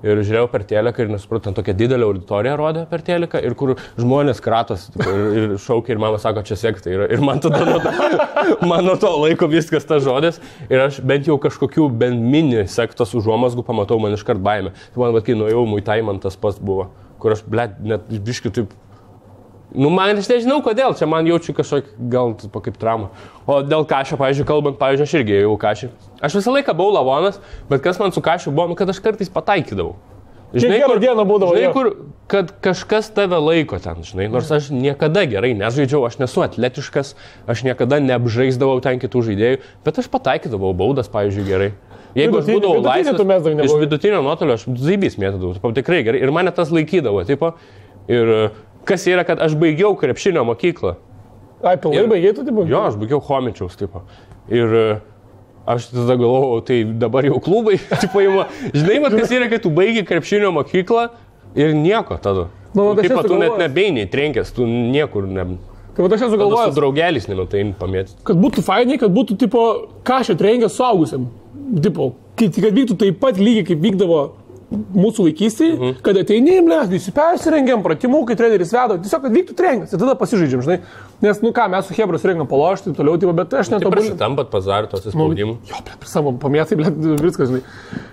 ir žiūrėjau per teliką ir nesupratau, tokia didelė auditorija rodė per teliką ir kur žmonės kratos ir šaukia ir mama sako, čia sekta yra. Ir man tada nuo to laiko viskas tas žodis ir aš bent jau kažkokių bent mini sektos užuomazgų pamatau, man iškart baimė. Man, bet kai nuėjau muitai, man tas pats buvo, kur aš, blėt, net biškai taip... Nu, man aš nežinau kodėl, čia man jaučiu kažkokį, gal kaip traumą. O dėl Kašio, pavyzdžiui, kalbant, pavyzdžiui, aš irgi ėjau Kašį. Aš visą laiką buvau lavonas, bet kas man su Kašiu buvo, nu, kad aš kartais pataikydavau. Žinai, kur dieną būdavo, žinai, kur, kad kažkas tave laiko ten, žinai, nors aš niekada gerai nežaidžiau, aš nesu atletiškas, aš niekada neapžaisdavau ten kitų žaidėjų, bet aš pataikydavau baudas, pavyzdžiui, gerai. Jeigu aš būdavau laisvas, iš vidutinio nuotolio aš zaibys mėtydavau, tikrai gerai, ir mane tas laikydavo, tipo, ir... Kas yra, kad aš baigiau krepšinio mokyklą. Ai, pilnai baigiai tu, tipo? Jo, aš baigiau Chomičiaus, tipo. Ir aš tada galvojau, tai dabar jau klubai, tipo, žinai, mat, kas yra, kad tu baigi krepšinio mokyklą ir nieko tada. Nu, tipo, tu net nebeiniai trenkęs, tu niekur ne... Tai aš esu galvojęs. Su draugelis nemetai pamėti. Kad būtų fainai, kad būtų, tipo, Kašio trenkęs suaugusiam. Tipo, kad vyktų taip pat lygiai, kaip vykdavo mūsų vaikystėje, kad ateini, visi persirengiam, pratimų, kai treneris vedo, tiesiog, kad vyktų treningas ir tada pasižaidžiam, žinai. Nes, nu ką, mes su Hebra surengam palošti, toliau, tipo, bet aš netobulinu. Tai prasitampat pazarį tos įspaudimų. Jo, savo pamėtai, viskas, žinai.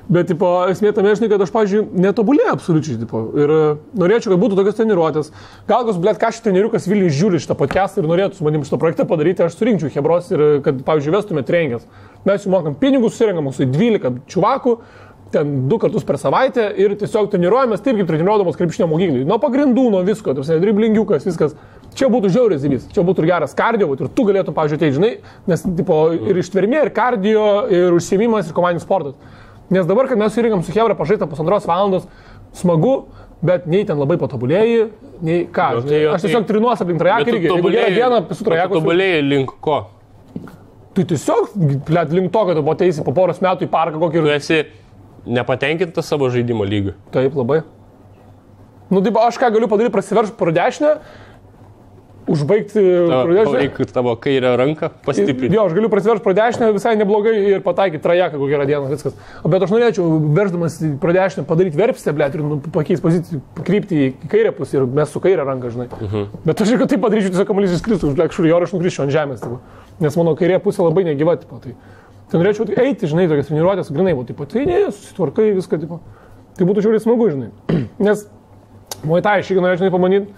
Bet, tipo, esmė tame, žinai, kad aš, pavyzdžiui, netobulėjau absoliučiai, tipo. Ir norėčiau, kad būtų tokios treniruotės. Gal kas, blėt, Kašio treneriukas Vilnius žiūri šitą podcastą ir norėtų su manim šitą projektą padaryti, aš surinkčiau Hebros ir, kad, pavyzdžiui, vestume treningas. Mes jų mokam pinigus, surengam mūsų 12 čuvakų. Ten 2 kartus per savaitę ir tiesiog treniruojamės taip, kaip treniruodamos krepšinio mokyklai. Nuo pagrindų, nuo visko, driblingiukas, viskas. Čia būtų žiauriai zibys, čia būtų ir geras kardio, ir tu galėtum, pavyzdžiui, tai žinai, nes tipo, ir ištvermė, ir kardio, ir užsiėmimas, ir komandinis sportas. Nes dabar, kad mes surinkam su Hebra pažaistą 1,5 valandos, smagu, bet nei ten labai patobulėjai, nei ką. No, tai aš tiesiog trinuos aplink trajeką irgi. Jeigu gerą dieną su trajeku. Tobulėjai link ko? Tai tiesiog, link to, kad tu ateisi po poros metų į parką kokį ir... Tu esi nepatenkintas savo žaidimo lygiu. Taip, labai. Nu, taip, aš ką galiu padaryti, prasiverš pro dešinę, užbaigti pro dešinę. Reikia tavo kairę ranką pastiprinti. Jo, aš galiu prasiverš pro dešinę visai neblogai ir pataikyti trajeką kokią gerą dieną, viskas. Bet aš norėčiau, verždamas pro dešinę, padaryti verpstę, blėt, ir pakeisti poziciją, pakrypti į kairę pusę ir mes su kairę ranką, žinai. Bet aš jeigu taip padaryčiau, tiesiog kamuolys įskristų, blėt, kažkur ir aš nukrisčiau ant žemės. Tipo. Nes mano kairė pusė labai negyva, tipo, tai norėčiau eiti, žinai, tokias treniruotės, grinai, tipo, tai ne, susitvarkai viską, tipo. Tai būtų žiauriai smagu, žinai. Nes muitai aš irgi norėčiau pamanyti,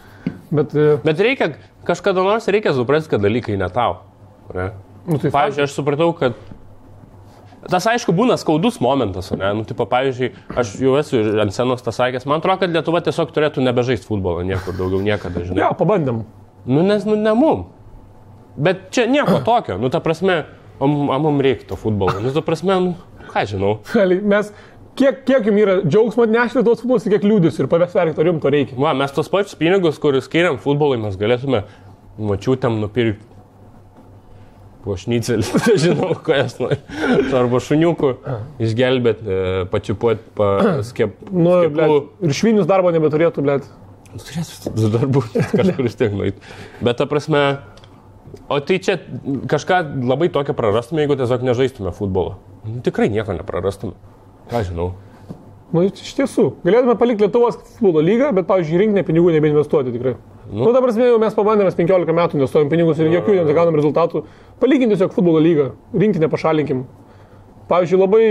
bet reikia, kažkada nors reikia suprasti, kad dalykai ne tau. Ne? Nu, tai pavyzdžiui, aš supratau, kad tas aišku būna skaudus momentas, ne? Nu, tipo, pavyzdžiui, aš jau esu ant scenos tas sakęs, man atrodo, kad Lietuva tiesiog turėtų nebežaisti futbolą niekur daugiau niekada, žinai. Jo, pabandėm. Nu, nes, ne mum. Bet čia nieko tokio, nu, ta prasme, mums reikia to futbolo, nu, ta prasme, nu, ką žinau. Mes, kiek jums yra džiaugsmo atnešti tos futbolos, kiek liūdės ir pavėsverti, ar jums to reikia. Va, mes tos pačius pinigus, kuriuos skiriam futbolui, mes galėtume mačiutėm nupirkti po šnicelį, nežinau, ko jas nori. Arba šuniukų išgelbėt, pačiupuot, skepų. Ir švinius darbo nebeturėtų, blėt. Turėtų darbų kažkur vis tiek nueit. Bet ta prasme, o tai čia kažką labai tokio prarastume, jeigu tiesiog nežaistume futbolą. Tikrai nieko neprarastume. Ką žinau. Iš tiesų, galėtume palikti Lietuvos futbolo lygą, bet, pavyzdžiui, rinkinė pinigų nebeinvestuoti tikrai. Ta prasme, jau mes pabandėme 15 metų, investuojam pinigus ir jokių negaunam rezultatų. Palikim tiesiog futbolo lygą, rinkinę pašalinkim. Pavyzdžiui, labai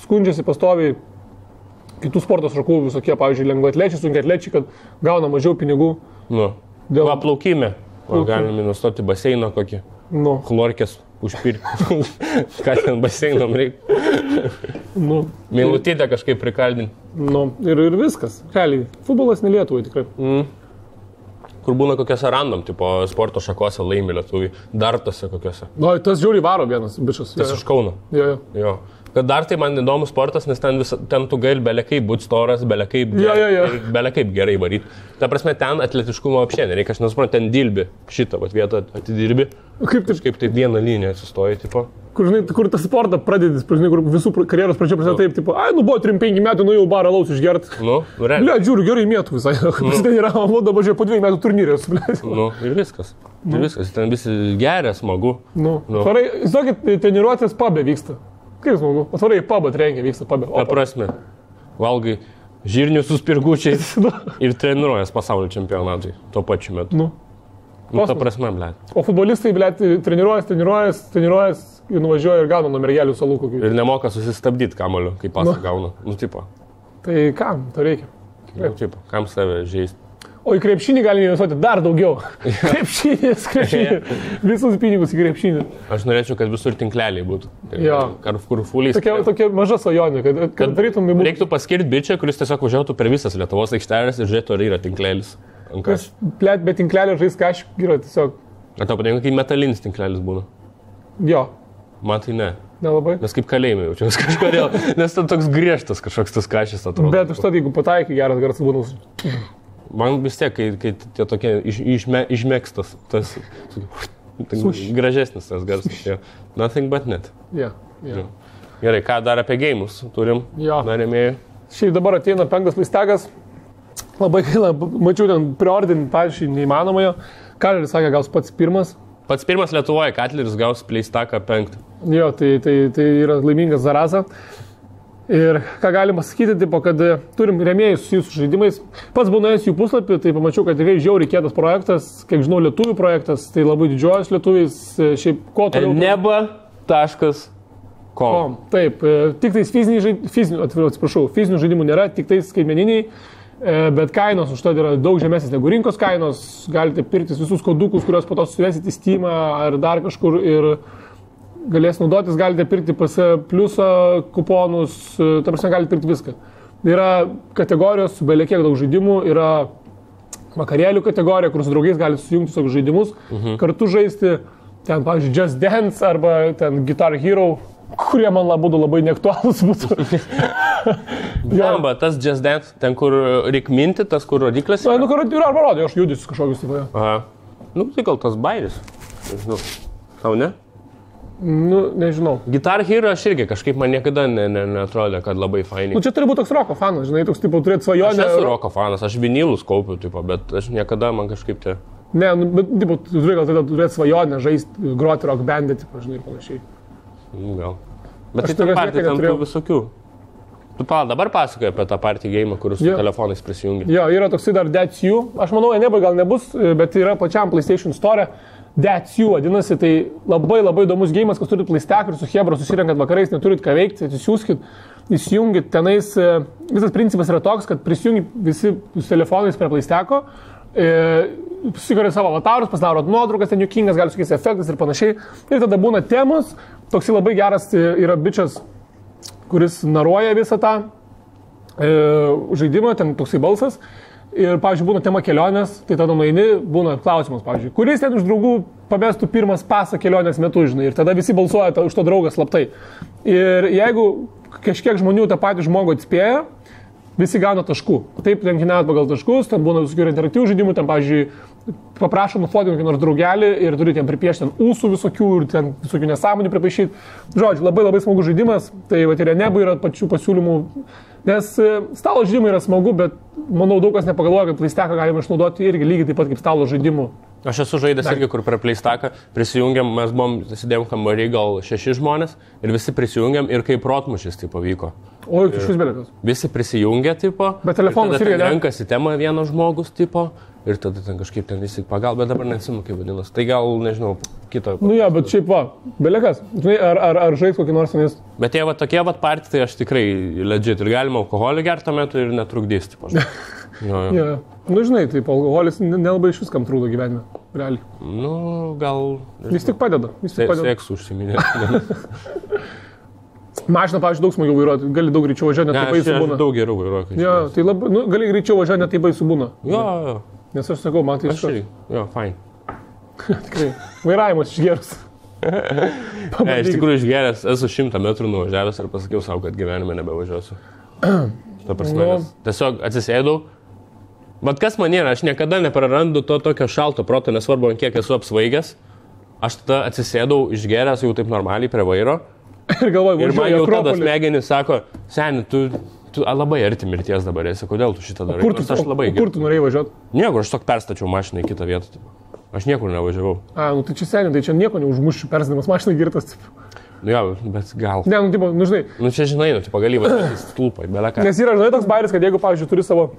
skundžiasi pastoviai kitų sporto šakų visokie, pavyzdžiui, lengvaatlečiai, sunkiaatlečiai, kad gauna mažiau pinigų. Dėl plaukime. Galim investuoti baseiną kokį. Chlorkės užpirkti. Ką ten baseinom reikia. Meilutytę kažkaip prikaldinti. Ir viskas. Realiai, futbolas ne Lietuvai tikrai. Kur būna kokiose random, tipo sporto šakose laimi lietuviai. Dartose kokiose. Tas žiauriai varo vienas bičias. Tas iš Kauno. Jo. Kad dar tai man įdomus sportas, nes ten tu gali belekai būti storas, belekai gerai varyti. Ta prasme, ten atletiškumo apšė nereikia, aš nesuprantu, ten dilbi šitą vietą atidirbi. Kaip taip vieną liniją atsistoji, tipo. Kur tą sportą pradedi, kur visų karjeros pradžia prasideda taip, tipo, buvo 3-5 metų, jau barą laus išgert. Realiai. Bля, žiūriu, gerai mėtų visai. Ten yra, dabar žiūrėjau, po 2 metų turnyrės. Ir viskas. Ten visi geria, smagu. Varai, žinokit, treniruotės pabė vyksta. Kaip smagu? Atvarai į pabą trenkia, vyksta pabė. Ta prasme, valgai žirnius su spirgučiais ir treniruojas pasaulio čempionatui tuo pačiu metu. Ta prasme, blėt. O futbolistai, blėt, treniruojas ir nuvažiuoja ir gauna nuo mergelių salų kokių. Ir nemoka susistabdyti kamoliu, kai pasą gauna. Tipo. Tai kam to reikia? Tipo, kam save žaisti? O į krepšinį galime investuoti dar daugiau. Krepšinis. Visus pinigus į krepšinį. Aš norėčiau, kad visur tinkleliai būtų. Kur fuliais. Tokia maža svajonė, kad darytum į būtų. Reiktų paskirti bičią, kuris tiesiog važiuotų per visas Lietuvos aikštelės ir žiūrėtų, ar yra tinklelis. Plėt, bet tinklelio žais kažkaip yra tiesiog. Ar tau patinka, kai metalinis tinklelis būna? Jo. Man tai ne. Nelabai. Nes kaip kalėjime jaučiaus kažkodėl. Nes ten toks griežtas kažkoks tas kažis atrodo. Bet užtat, jeigu pataikai geras garsas būnus. Man vis tiek, kai tie tokie išmėgstas, tas gražesnis tas garsas. Nothing but net. Gerai, ką dar apie geimus turim? Narėmėjai. Šiaip dabar ateina 5 pleistekas. Labai gaila, mačiau ten preordinį, pavyzdžiui, neįmanomojo. Katleris sakė, gaus pats pirmas. Pats pirmas Lietuvoje, Katleris gaus pleistaką 5. Jo, tai yra laimingas zaraza. Ir ką galim pasakyti, tipo, kad turim rėmėjus su jūsų žaidimais. Pats būnais jų puslapį, tai pamačiau, kad tikrai žiauriai kietas projektas, kiek žinau, lietuvių projektas, tai labai didžiuojas lietuviais, šiaip ko toliau. Neba.com. Taip, tik tais fizinių žaidimų nėra, tik tais skaitmeniniai, bet kainos už tai yra daug žemesnės negu rinkos kainos, galite pirktis visus kodukus, kuriuos po to suvesit į Steamą ar dar kažkur ir galės naudotis, galite pirkti pas pliusą kuponus, ta prasme galite pirkti viską. Yra kategorijos, belie kiek daug žaidimų, yra vakarėlių kategorija, kur su draugais galite sujungti savo žaidimus, kartu žaisti, ten, pavyzdžiui, Just Dance arba ten Guitar Hero, kurie man labai neaktualūs būtų. Jamba, tas Just Dance, ten kur reik minti, tas kur rodiklis. Kur yra arba rodė, aš judisiu kažkokius taip. Tai gal tas bairis. Nežinau. Tau ne? Nežinau. Guitar Hero aš irgi kažkaip man niekada neatrodė, kad labai fainiai. Čia turi būti toks roko fanas, žinai, toks tipo turėti svajonę. Aš esu roko fanas, aš vinilus kaupiu, tipo, bet aš niekada man kažkaip tie... Ne, bet tipo, tu turi gal turėti svajonę, žaisti, groti rock bandį, tipo, žinai, ir panašiai. Gal. Bet tai ten partijai ten tų visokių. Tu dabar pasakoji apie tą partijų game, kur su telefonais prisijungi. Jo, yra toksai dar That's You. Aš manau, Eneba gal nebus, bet yra pačiam PlayStation Store. That's You vadinasi, tai labai įdomus gėjimas, kas turit PlayStation ir su Hebra susirenkat vakarais, neturit ką veikti, atsisiųskit, įsijungit, tenais visas principas yra toks, kad prisijungit visi su telefonais prie PlayStation, susikuriat savo avatarus, pasidarot nuotraukas, ten juokingas, gali sukeisti efektas ir panašiai, ir tada būna temos, toksai labai geras yra bičias, kuris naruoja visą tą žaidimą, ten toksai balsas. Ir, pavyzdžiui, būna tema kelionės, tai tada nueini, būna klausimas, pavyzdžiui, kuris ten iš draugų pamestų pirmas pasą kelionės metu, žinai, ir tada visi balsuoja už to draugą slaptai. Ir jeigu kažkiek žmonių tą patį žmogų atspėja, visi gauna taškų. Taip, lenkinėjat pagal taškus, ten būna visokių interaktyvių žaidimų, ten, pavyzdžiui, paprašo nufotinti kokį nors draugelį ir turi ten pripiešti ten ūsų visokių ir ten visokių nesąmonių pripaišyti. Žodžiu, labai labai smagus žaidimas, tai va ir Enebui yra pačių pasiūlymų, nes stalo žaidimai yra smagu, bet manau daug kas nepagalvoja, kad PlayStation'ą galima išnaudoti irgi lygiai taip pat kaip stalo žaidimų. Aš esu žaidęs irgi, kur prie PlayStation'ą prisijungiam, mes buvom, sėdėjom kambarį gal 6 žmonės ir visi prisijungiam ir kaip protmušis tai pavyko. O, kažkas belikas. Visi prisijungia, tipo. Bet telefonas irgi ne. Renkasi temą vienas žmogus, tipo. Ir tada ten kažkaip ten visi pagal, bet dabar neatsimenu, kaip vadinasi. Tai gal, nežinau, kito. Nu jo, bet šiaip va, belikas. Ar žais kokį nors tenais? Bet jie va tokie va partijai, tai aš tikrai legit. Ir galima alkoholį gerti tuo metu ir netrukdys, tipo. Ja. Nu žinai, taip, alkoholis nelabai iš viskam trūdo gyvenime, realiai. Nu, gal... Jis tik padeda. Seksu užsiminė. Mašina, pavyzdžiui, daug smagiau vairuoti, gali daug greičiau važiuoti, net taip baisu būna. Daug geriau vairuoti. Jo, tai labai, nu, gali greičiau važiuoti, net taip baisu būna. Jo. Nes aš sakau, man tai iškart. Jo, fine. Tikrai, vairavimas išgerus. Iš tikrųjų išgeręs, esu 100 metrų nuvažiavęs ir pasakiau savo, kad gyvenime nebevažiuosiu. Ta prasme, tiesiog atsisėdau. Bet kas man yra, aš niekada neprarandu to tokio šalto proto, nesvarbu, kiek esu apsvaigęs. Aš tada atsisėdau išgeręs jau taip normaliai prie vairo. Ir galvoju, ir man jau tada smegenis sako, seni, tu labai arti mirties dabar esi, kodėl tu šitą darai? Kur tu norėjai važiuoti? Niekur, aš tok perstačiau mašiną į kitą vietą. Aš niekur nevažiavau. Nu tai čia seni, tai čia nieko neužmušiu, persdamas mašiną girtas. Jo, bet gal. Ne, nu, tipo, nu žinai. Nu čia žinai, nu, tipo, gali važiuoti stulpai, beleką. Nes yra, žinai, toks bairis, kad jeigu, pavyzdžiui, turi savo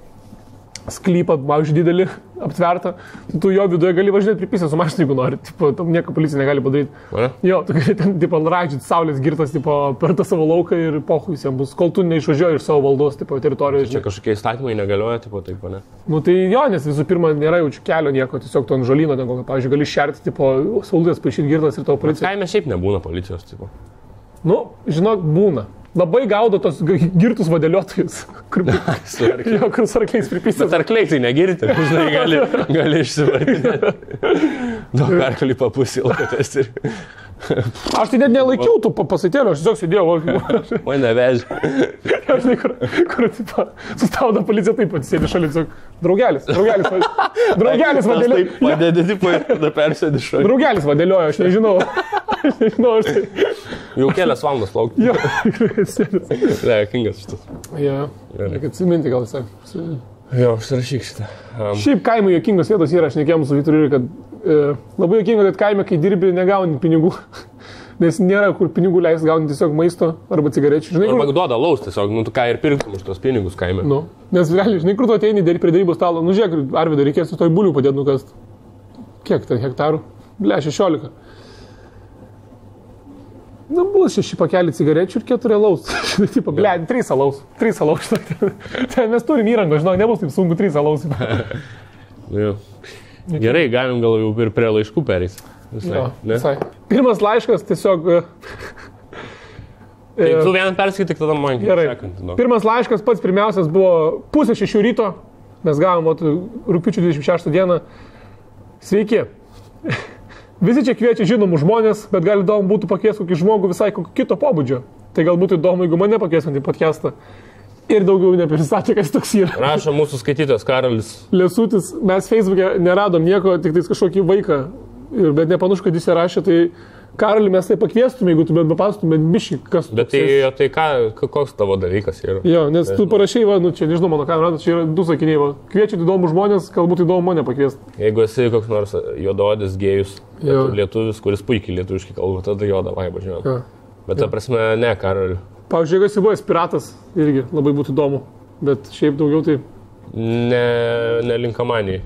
sklypą, pavyzdžiui, didelį, aptvertą, tu jo viduje gali važiuoti pripysę su mašina, jeigu nori. Tipo, tam nieko policija negali padaryti. Jo, tu gali ten, tipo, raidžiuoti saulės girtas, tipo, per tą savo lauką ir pohui visiems bus, kol tu neišvažiuoji iš savo valdos, tipo, teritorijos. Čia kažkokie įstatymai negalioja, tipo, taip, ne? Nu tai jo, nes visų pirma, nėra jaučiu kelio nieko, tiesiog tu ant žolyno, ten kokio, pavyzdžiui, gali šerti, tipo, saulės paaišyti girtas ir tavo policija. Kaime šiaip nebūna policijos, tipo. Nu, žinok, būna. Labai gaudo tos girtus vadėliotojus, kur su arkliais pripysės. Bet arkliai tai negirti, žinai, gali išsivardinti. Daug arklį papusilkotės ir... Aš tai net nelaikiau tų pasatėlių, aš tiesiog sėdėjau. Mane vežė. Aš žinai, kur sustabdo policija, taip pat sėdi šalia, tiesiog draugelis vadėliojo. Taip padėdė, tipo, ir tada persėdi šalia. Draugelis vadėliojo, aš nežinau. Aš tai... Jau kelias valandas laukti. Jo, sėdės. Kingas šitas. Jo, reikia atsiminti gal visai. Jo, užsirašyk šitą. Šiaip kaimo juokingos vietos yra, aš nekėjom su Vyturiu, kad labai juokinga, kad kaime, kai dirbi, negauni pinigų. Nes nėra kur pinigų leis gauni tiesiog maisto arba cigarečių. Žinai, arba duoda laus tiesiog, nu tu ką ir pirktum už tos pinigus kaime. Nu, nes realiai, žinai, kur tu ateini prie darybos stalo, nu žiūrėk, Arvydą reikės su toj bulių padėti nukast. Kiek ten hektarų? Ble, 16. Nu, bus 6 pakelį cigarečių ir 4 alaus. Tipo, ble, 3 alaus. 3 alaus. Mes turim įrangą, žinok, nebus taip sunku 3 alaus. Gerai, galim gal jau ir prie laiškų perės. Visai. Pirmas laiškas tiesiog... Tai tu vieną perskaityk, tada man gerai. Pirmas laiškas pats pirmiausias buvo 5:30 ryto. Mes gavom rugpjūčio 26 dieną. Sveiki. Visi čia kviečia žinomų žmonės, bet gal įdomu būtų pakviesti kokį žmogų visai kito pobūdžio. Tai gal būtų įdomu, jeigu mane pakviesint į podcastą. Ir daugiau neprisistatė, kas toks yra. Rašo mūsų skaitytojas Karolis. Lesutis, mes Facebook'e neradom nieko, tik tais kažkokį vaiką. Bet nepanašu, kad jis rašė, tai Karolį mes tai pakviestume, jeigu tu bent papastumėt bišį, kas tu. Bet tai koks tavo dalykas yra? Jo, nes tu parašai, va, nu čia nežinau, mano kamerą, čia yra 2 sakiniai, va. Kviečiat įdomų žmonės, galbūt įdomu mane pakviesti. Jeigu esi koks nors juodaodis gėjus, lietuvis, kuris puikiai lietuviškai kalba, tada jo, davai, važiuojam. Bet ta prasme, ne, Karoli. Pavyzdžiui, jeigu esi buvęs piratas, irgi labai būtų įdomu, bet šiaip daugiau tai... Nelinkamanijai.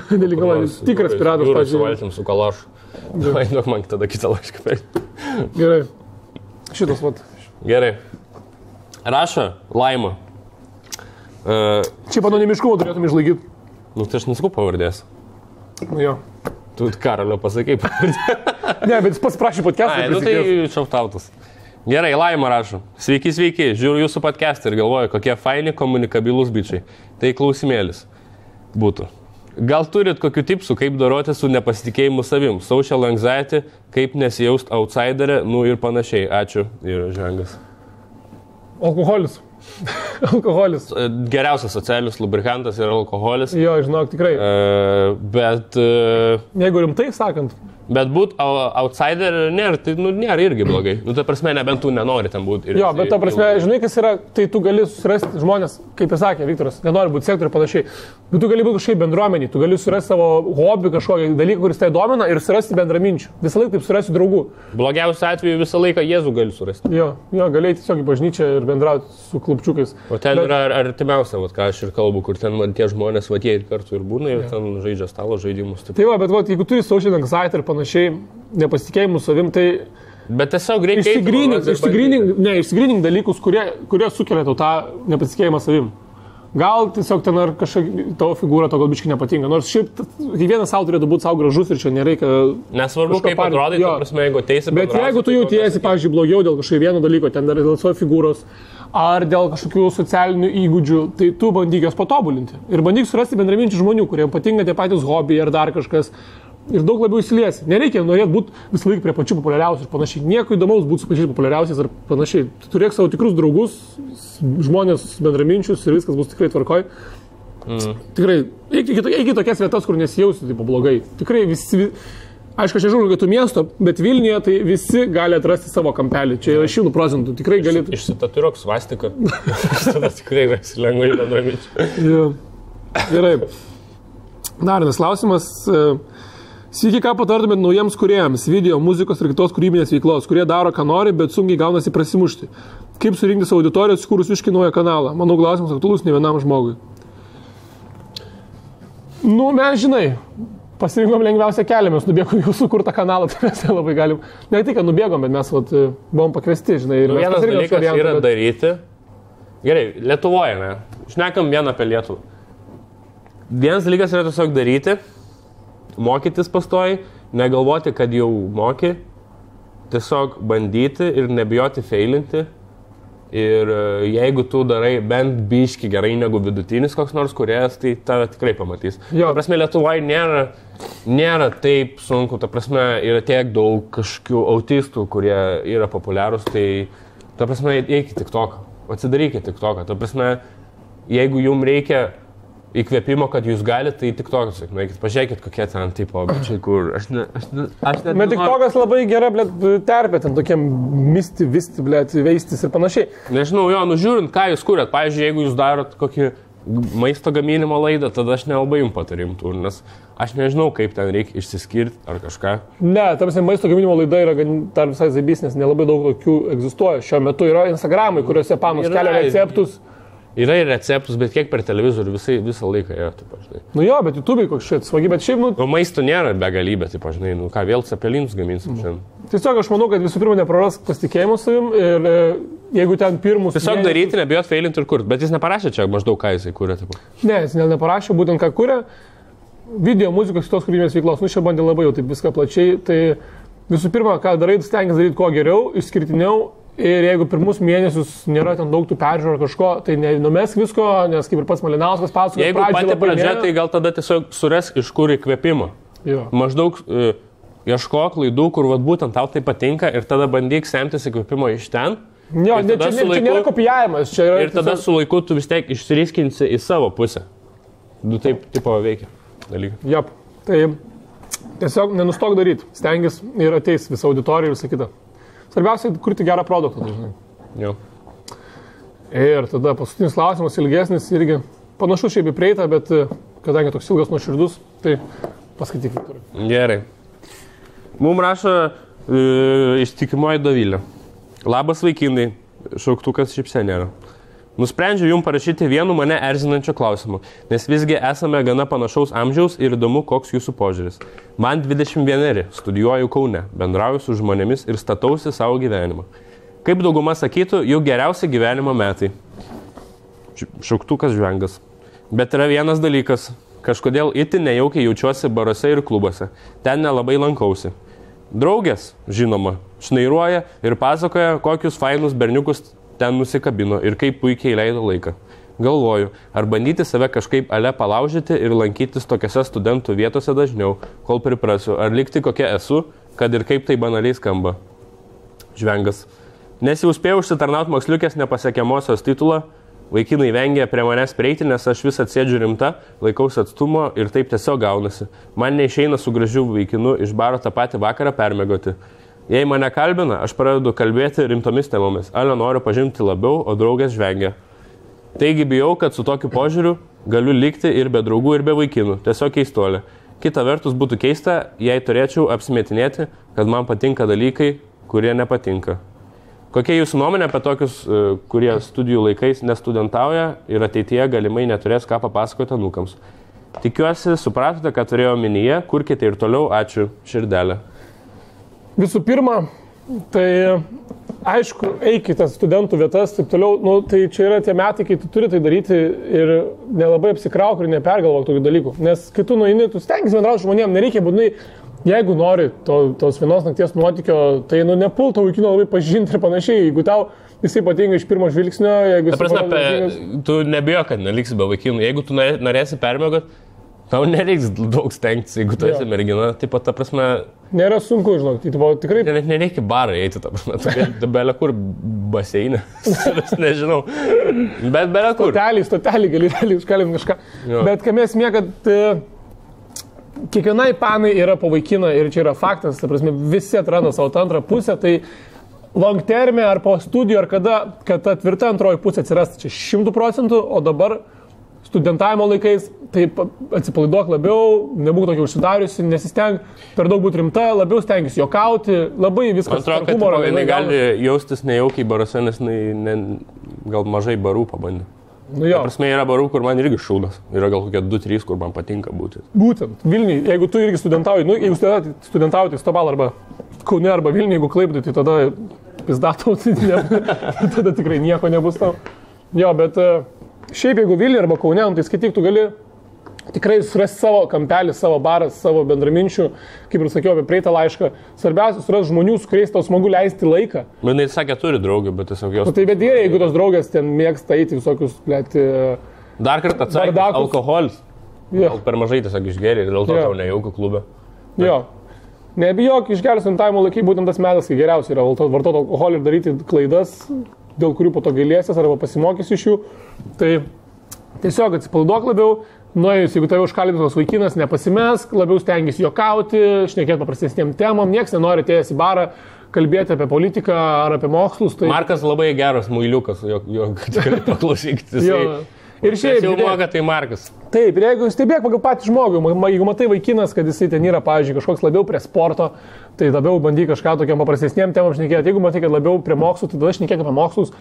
Nelinkamanijai, tikras piratas, pavyzdžiui. Su valtim, su kalašu. Davai, duok man tada kitą laišką perėti. Gerai. Šitas vat. Gerai. Rašo Laima. Šiaip anonimiškumą turėtum išlaikyti. Nu, tai aš nesakau pavardės. Nu jo. Tu Karolio pasakai pavardė. Ne, bet jis pats prašė podcastą. Nu tai šautautas. Gerai, Laima rašo. Sveiki, žiūriu jūsų podcastą ir galvoju, kokie faini komunikabilūs bičiai. Tai klausimėlis būtų. Gal turit kokių tipsų, kaip doroti su nepasitikėjimu savim, social anxiety, kaip nesijaust outsiderė, nu ir panašiai. Ačiū ir žengas. Alkoholis. Alkoholis. Geriausias socialinis lubrikantas yra alkoholis. Jo, žinok, tikrai. Bet... Jeigu rimtai sakant. Bet būt outsider nėra, tai nėra irgi blogai. Ta prasme, nebent tu nenori ten būti. Jo, bet ta prasme, žinai, kas yra, tai tu gali surasti žmonės, kaip ir sakė Viktoras, nenori būti sektoriui panašiai. Bet tu gali būti kažkaip bendruomenį, tu gali surasti savo hobį, kažkokį dalyką, kuris tai domina ir surasti bendraminčių. Visą laiką taip surasti draugų. Blogiausiu atveju visą laiką Jėzų gali surasti. Jo, gali tiesiog į bažnyčią ir bendrauti su klubčiukais. O ten yra artimiausia, ką aš ir kalbu, kur ten tie žmonės, jie ir kartu ir būna, ir ten žaidžia stalo žaidimus. Tai va, bet jeigu turi social anxiety ir panašiai, nepasitikėjimų savim, tai... Bet tiesiog reikia... Išsigrynink dalykus, kurie sukelia tau tą nepasitikėjimą savim. Gal tiesiog ten ar kažkokia tavo figūra to gal biškai nepatinka. Nors šiaip kiekvienas savo turėtų būti savo gražus ir čia nereikia... Nesvarbu, kaip atrodai, ta prasme, jeigu teisi... Bet jeigu tu jautiesi, pavyzdžiui, blogiau dėl kažkokio vieno dalyko, ten dar dėl savo figūros, ar dėl kažkokių socialinių įgūdžių, tai tu bandyk jos patobulinti. Ir bandyk surasti bendraminčių žmonių, kuriems patinka tie patys hobiai ar dar kažkas. Ir daug labiau įsiliesi. Nereikia norėti būti visą laiką prie pačių populiariausių ir panašiai. Nieko įdomaus būti su pačiais populiariausiais ar panašiai. Tu turėk savo tikrus draugus, žmonės bendraminčius ir viskas bus tikrai tvarkoj. Tikrai, iki tokias vietas, kur nesijausi taip blogai. Tikrai visi, aišku, aš nežinau, kad tu miesto, bet Vilniuje tai visi gali atrasti savo kampelį. Čia yra 100%. Tikrai gali... Išsitatuiruok svastiką. Tada tikrai esi lengvai bendraminčių. Gerai. Dar vienas klausimas. Sveiki, ką patartumėt naujiems kūrėjams, video, muzikos ir kitos kūrybinės veiklos, kurie daro, ką nori, bet sunkiai gaunasi prasimušti. Kaip surinkti savo auditoriją, sukūrus visiškai naują kanalą? Manau, klausimas aktualus ne vienam žmogui. Nu, mes, žinai, pasirinkom lengviausią kelią, mes nubėgom jau sukurtą kanalą, tai mes labai galim. Ne tik, kad nubėgom, bet mes buvom pakviesti, žinai. Ir vienas dalykas yra daryti. Gerai, Lietuvoje, ne? Šnekam vieną apie Lietuvą. Vienas dalykas yra tiesiog daryti. Mokytis pastoji, negalvoti, kad jau moki, tiesiog bandyti ir nebijoti feilinti. Ir jeigu tu darai bent biški gerai negu vidutinis koks nors kūrėjas, tai tave tikrai pamatys. Ta prasme, Lietuvoje nėra taip sunku, ta prasme, yra tiek daug kažkokių autistų, kurie yra populiarūs, tai ta prasme, eikit TikToką, atsidarykit TikToką. Ta prasme, jeigu jums reikia įkvėpimo, kad jūs galite, tai TikTokas, pažiūrėkit, kokie ten tipo, kur aš net... Bet TikTokas labai gera, terpė, ten tokiem misti, veistis ir panašiai. Nežinau, žiūrint, ką jūs kūrėt. Pavyzdžiui, jeigu jūs darot kokį maisto gaminimo laidą, tada aš nelabai jums patarimtų, nes aš nežinau, kaip ten reikia išsiskirti ar kažką. Ne, tamsi maisto gaminimo laida yra dar visai zaibys, nes nelabai daug tokių egzistuoja. Šiuo metu yra Instagramai, kuriuose panos kelia receptus. Yra ir receptus, bet kiek per televizorių visą laiką yra, taip žinai. Nu jo, bet YouTube'ai koks šit svagi, bet šiaip, O maisto nėra begalybė, taip žinai, ką vėl cepelinus gaminsim šiandien. Tiesiog aš manau, kad visų pirma nepraras pasitikėjimo savim ir jeigu ten pirmus... Tiesiog daryti, nebijot feilinti ir kurti, bet jis neparašė čia maždaug, ką jisai kūrė, taip. Ne, jis neparašė, būtent ką kūrė, video, muzikos, kitos kūrybinės veiklos, čia bandė labai jau taip viską plačiai, tai visų pirma, ką darai, stengiasi daryti kuo geriau, išskirtiniau. Ir jeigu pirmus mėnesius nėra ten daug tų peržiūrų ar kažko, tai nenumesk visko, nes kaip ir pats Malinauskas pasakoja. Jeigu pati pradžia, tai gal tada tiesiog suras iš kur įkvėpimo. Maždaug ieškok klaidų, kur būtent tau tai patinka ir tada bandyk semtis įkvėpimo iš ten. Jo, čia nėra kopijavimas. Ir tada su laiku tu vis tiek išsiriskinsi į savo pusę. Du taip tipo veikia dalykai. Jop, tai tiesiog nenustok daryti, stengis ir ateis visą auditoriją ir visą kitą. Svarbiausia, kurti gerą produktą. Jo. Ir tada paskutinis klausimas, ilgesnis, irgi panašus šiaip į prieitą, bet kadangi toks ilgas nuoširdus, tai paskaityk, Viktorai. Gerai. Mums rašo ištikimoji Dovilė. Labas vaikinai, šauktukas šypsenėra. Nusprendžiau jums parašyti vienu mane erzinančio klausimu, nes visgi esame gana panašaus amžiaus ir įdomu, koks jūsų požiūris. Man 21, studijuoju Kaune, bendrauju su žmonėmis ir statausi savo gyvenimą. Kaip dauguma sakytų, jų geriausi gyvenimo metai. Šauktukas žvengas. Bet yra vienas dalykas, kažkodėl itin nejaukiai jaučiuosi baruose ir klubuose. Ten nelabai lankausi. Draugės, žinoma, šnairuoja ir pasakoja, kokius fainus berniukus ten nusikabino ir kaip puikiai leido laiką. Galvoju, ar bandyti save kažkaip ale palaužyti ir lankytis tokiose studentų vietose dažniau, kol priprasiu, ar likti kokia esu, kad ir kaip tai banaliai skamba. Žvengas. Nes jau spėjau užsitarnauti moksliukės nepasiekiamosios titulą, Vaikinai vengia prie manęs prieiti, nes aš vis atsėdžiu rimta, laikausi atstumo ir taip tiesiog gaunasi. Man neišeina su gražiu vaikinu iš baro tą patį vakarą permėgoti. Jei mane kalbina, aš pradedu kalbėti rimtomis temomis. Ale noriu pažinti labiau, o draugės žvengia. Taigi bijau, kad su tokiu požiūriu galiu likti ir be draugų, ir be vaikinų. Tiesiog keistolė. Kita vertus būtų keista, jei turėčiau apsimetinėti, kad man patinka dalykai, kurie nepatinka. Kokia jūsų nuomonė apie tokius, kurie studijų laikais nestudentauja ir ateityje galimai neturės ką papasakoti anūkams? Tikiuosi, supratote, ką turėjau minyje, kurkite ir toliau, ačiū, širdelė. Visų pirma, tai aišku, eikite studentų vietas, taip toliau, nu, tai čia yra tie metai, kai tu turi tai daryti ir nelabai apsikrauk ir nepergalvok tokių dalykų. Nes kai tu nueini, tu stengiasi bendrauti žmonėm, nereikia būtinai. Jeigu nori tos vienos nakties nuotykio, tai nepult to vaikino labai pažinti ir panašiai. Jeigu tau jisai patinka iš pirmo žvilgsnio, jeigu... Ta prasme, tu nebijo, kad neliksi be vaikinų. Jeigu tu norėsi permėgot, tau nereiks daug stengtis, jeigu tu esi mergina. Taip pat, ta prasme... Nėra sunku, žinok, tai tikrai... Net nereikia barą eiti, ta prasme. Tu belė kur baseinė. Nežinau. Bet belė kur. Stotelį gali užkalint kažką. Jo. Bet kam esmė, kad... Kiekvienai panai yra po vaikiną ir čia yra faktas, ta prasme, visi atranda savo antrą pusę, tai long terme ar po studijų, ar kada, kad ta tvirta antroji pusė atsirastų čia 100%, o dabar studentavimo laikais, tai atsipalaiduok labiau, nebūk tokia užsidariusi, nesisteng per daug būti rimta, labiau stengiasi jokauti, labai viskas. Man atrodo, kad jinai gali jaustis nejaukiai baruose, nes gal mažai barų pabandė. Nu jo. Prasme, yra barų, kur man irgi šūdas. Yra gal kokie 2-3, kur man patinka būti. Būtent. Vilniui, jeigu tu irgi studentauji, jeigu studentauji, tai Stobal arba Kaune arba Vilniui, jeigu Klaipėdai, tai tada pizdatau, tada tikrai nieko nebus tau. Jo, bet šiaip jeigu Vilniui arba Kaune, tai skaityk, tu gali tikrai surasti savo kampelį, savo barą, savo bendraminčių, kaip ir sakiau apie praeitą laišką. Svarbiausia, surasti žmonių, su kuriais tau smagu leisti laiką. Jis sakė, turi draugų, bet tiesiog jos... Tai bet jeigu tos draugės ten mėgsta eiti visokius, blėti... Dar kartą atsakė, alkoholis. Gal per mažai tiesiog išgeri ir dėl to tau nejauku klube. Bet... Jo. Nebijok, išgerus studentavimo laikai būtent tas metas, kai geriausia yra vartoti alkoholį ir daryti klaidas, dėl kurių po to gailėsies arba pasimokysi iš jų. Tai tiesiog atsipalaiduok labiau. Nuėjus, jeigu tave užkalbintos vaikinas, nepasimesk, labiau stengiasi jokauti, šnekėti paprastesnėm temom, nieks nenori atėjęs į barą kalbėti apie politiką ar apie mokslus. Tai... Markas labai geras muiliukas, jo tikrai paklausykite. Ir šiaip jau moka, tai Markas. Taip, ir jeigu stebėk pagal patį žmogų, jeigu matai vaikinas, kad jisai ten yra, pavyzdžiui, kažkoks labiau prie sporto, tai labiau bandyk kažką tokiam paprastesniem temam šnekėti. Jeigu matai, kad labiau prie mokslų, tai tada šnekėk apie mokslus.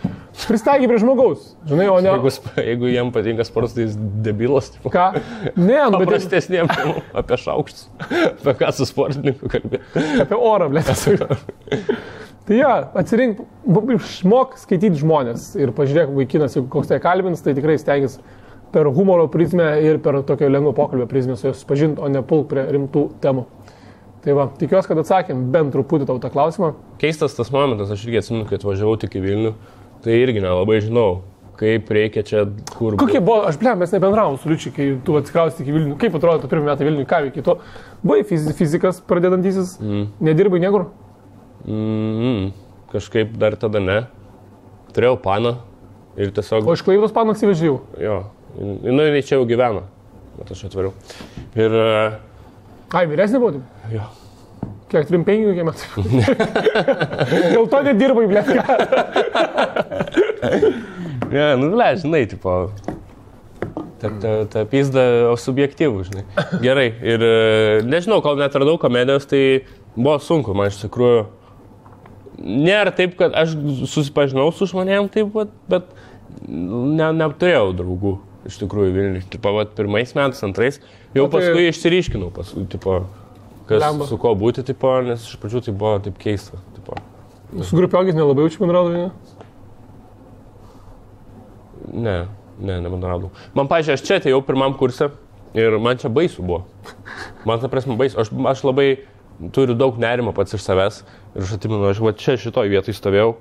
Pristaiky prie žmogaus. Žinai, o ne... Jeigu jam patinka sportas, tai jis debilas. Tipo. Ką? Ne, paprastesniem temam apie šaukštus. Apie ką su sportininku kalbėti. Apie orą, blėtas. Tai ja, atsirink, išmok skaityti žmonės ir pažiūrėk vaikinas, jeigu koks tai kalbins, tai tikrai stengiasi per humoro prizmę ir per tokio lengvo pokalbio prizmę su juos pažinti, o ne pulk prie rimtų temų. Tai va, tikiuosi, kad atsakėm bent truputį tau tą klausimą. Keistas tas momentas, aš irgi atsimenu, kai atvažiavau tik į Vilnių, tai irgi nelabai žinau, kaip reikia čia, kur... Kokie buvo, mes nebendravom su Liučiu, kai tu atsikraustai iki Vilnių. Kaip atrodo, tu pirmą metą Vilnių, ką veikia tu? Buvai fizikas pradedantysis, nedirbai niekur? Kažkaip dar tada ne. Turėjau paną ir tiesiog... O iš Klaipėdos paną atsivežėjau? Jo, jinai čia jau gyvena, bet aš atvariau. Ir... Ai, vyresnė buvo? Jo. Kiek 3-5 kokie metai? Dėl to nedirbai, blėt. Ne, žinai, tipo... Ta pizda subjektyvų, žinai. Gerai, ir nežinau, kol netradau komedijos, tai buvo sunku, man iš tikrųjų. Nėra taip, kad aš susipažinau su žmonėm taip, bet neturėjau draugų iš tikrųjų Vilniui. Tipo, pirmais metais, antrais, jau paskui išsiryškinau, tipo, kas su ko būti, tipo, nes iš pradžių tai buvo taip keista. Tipo. Su grupiokais nelabai jaučiu bendraudavai, ne? Ne, nebendraudavau. Man, pažiūrėjau, aš čia atėjau pirmam kurse ir man čia baisu buvo. Man ta prasme baisu. Aš labai turiu daug nerimo pats iš savęs ir aš atsimenu, aš čia šitoj vietoj stovėjau.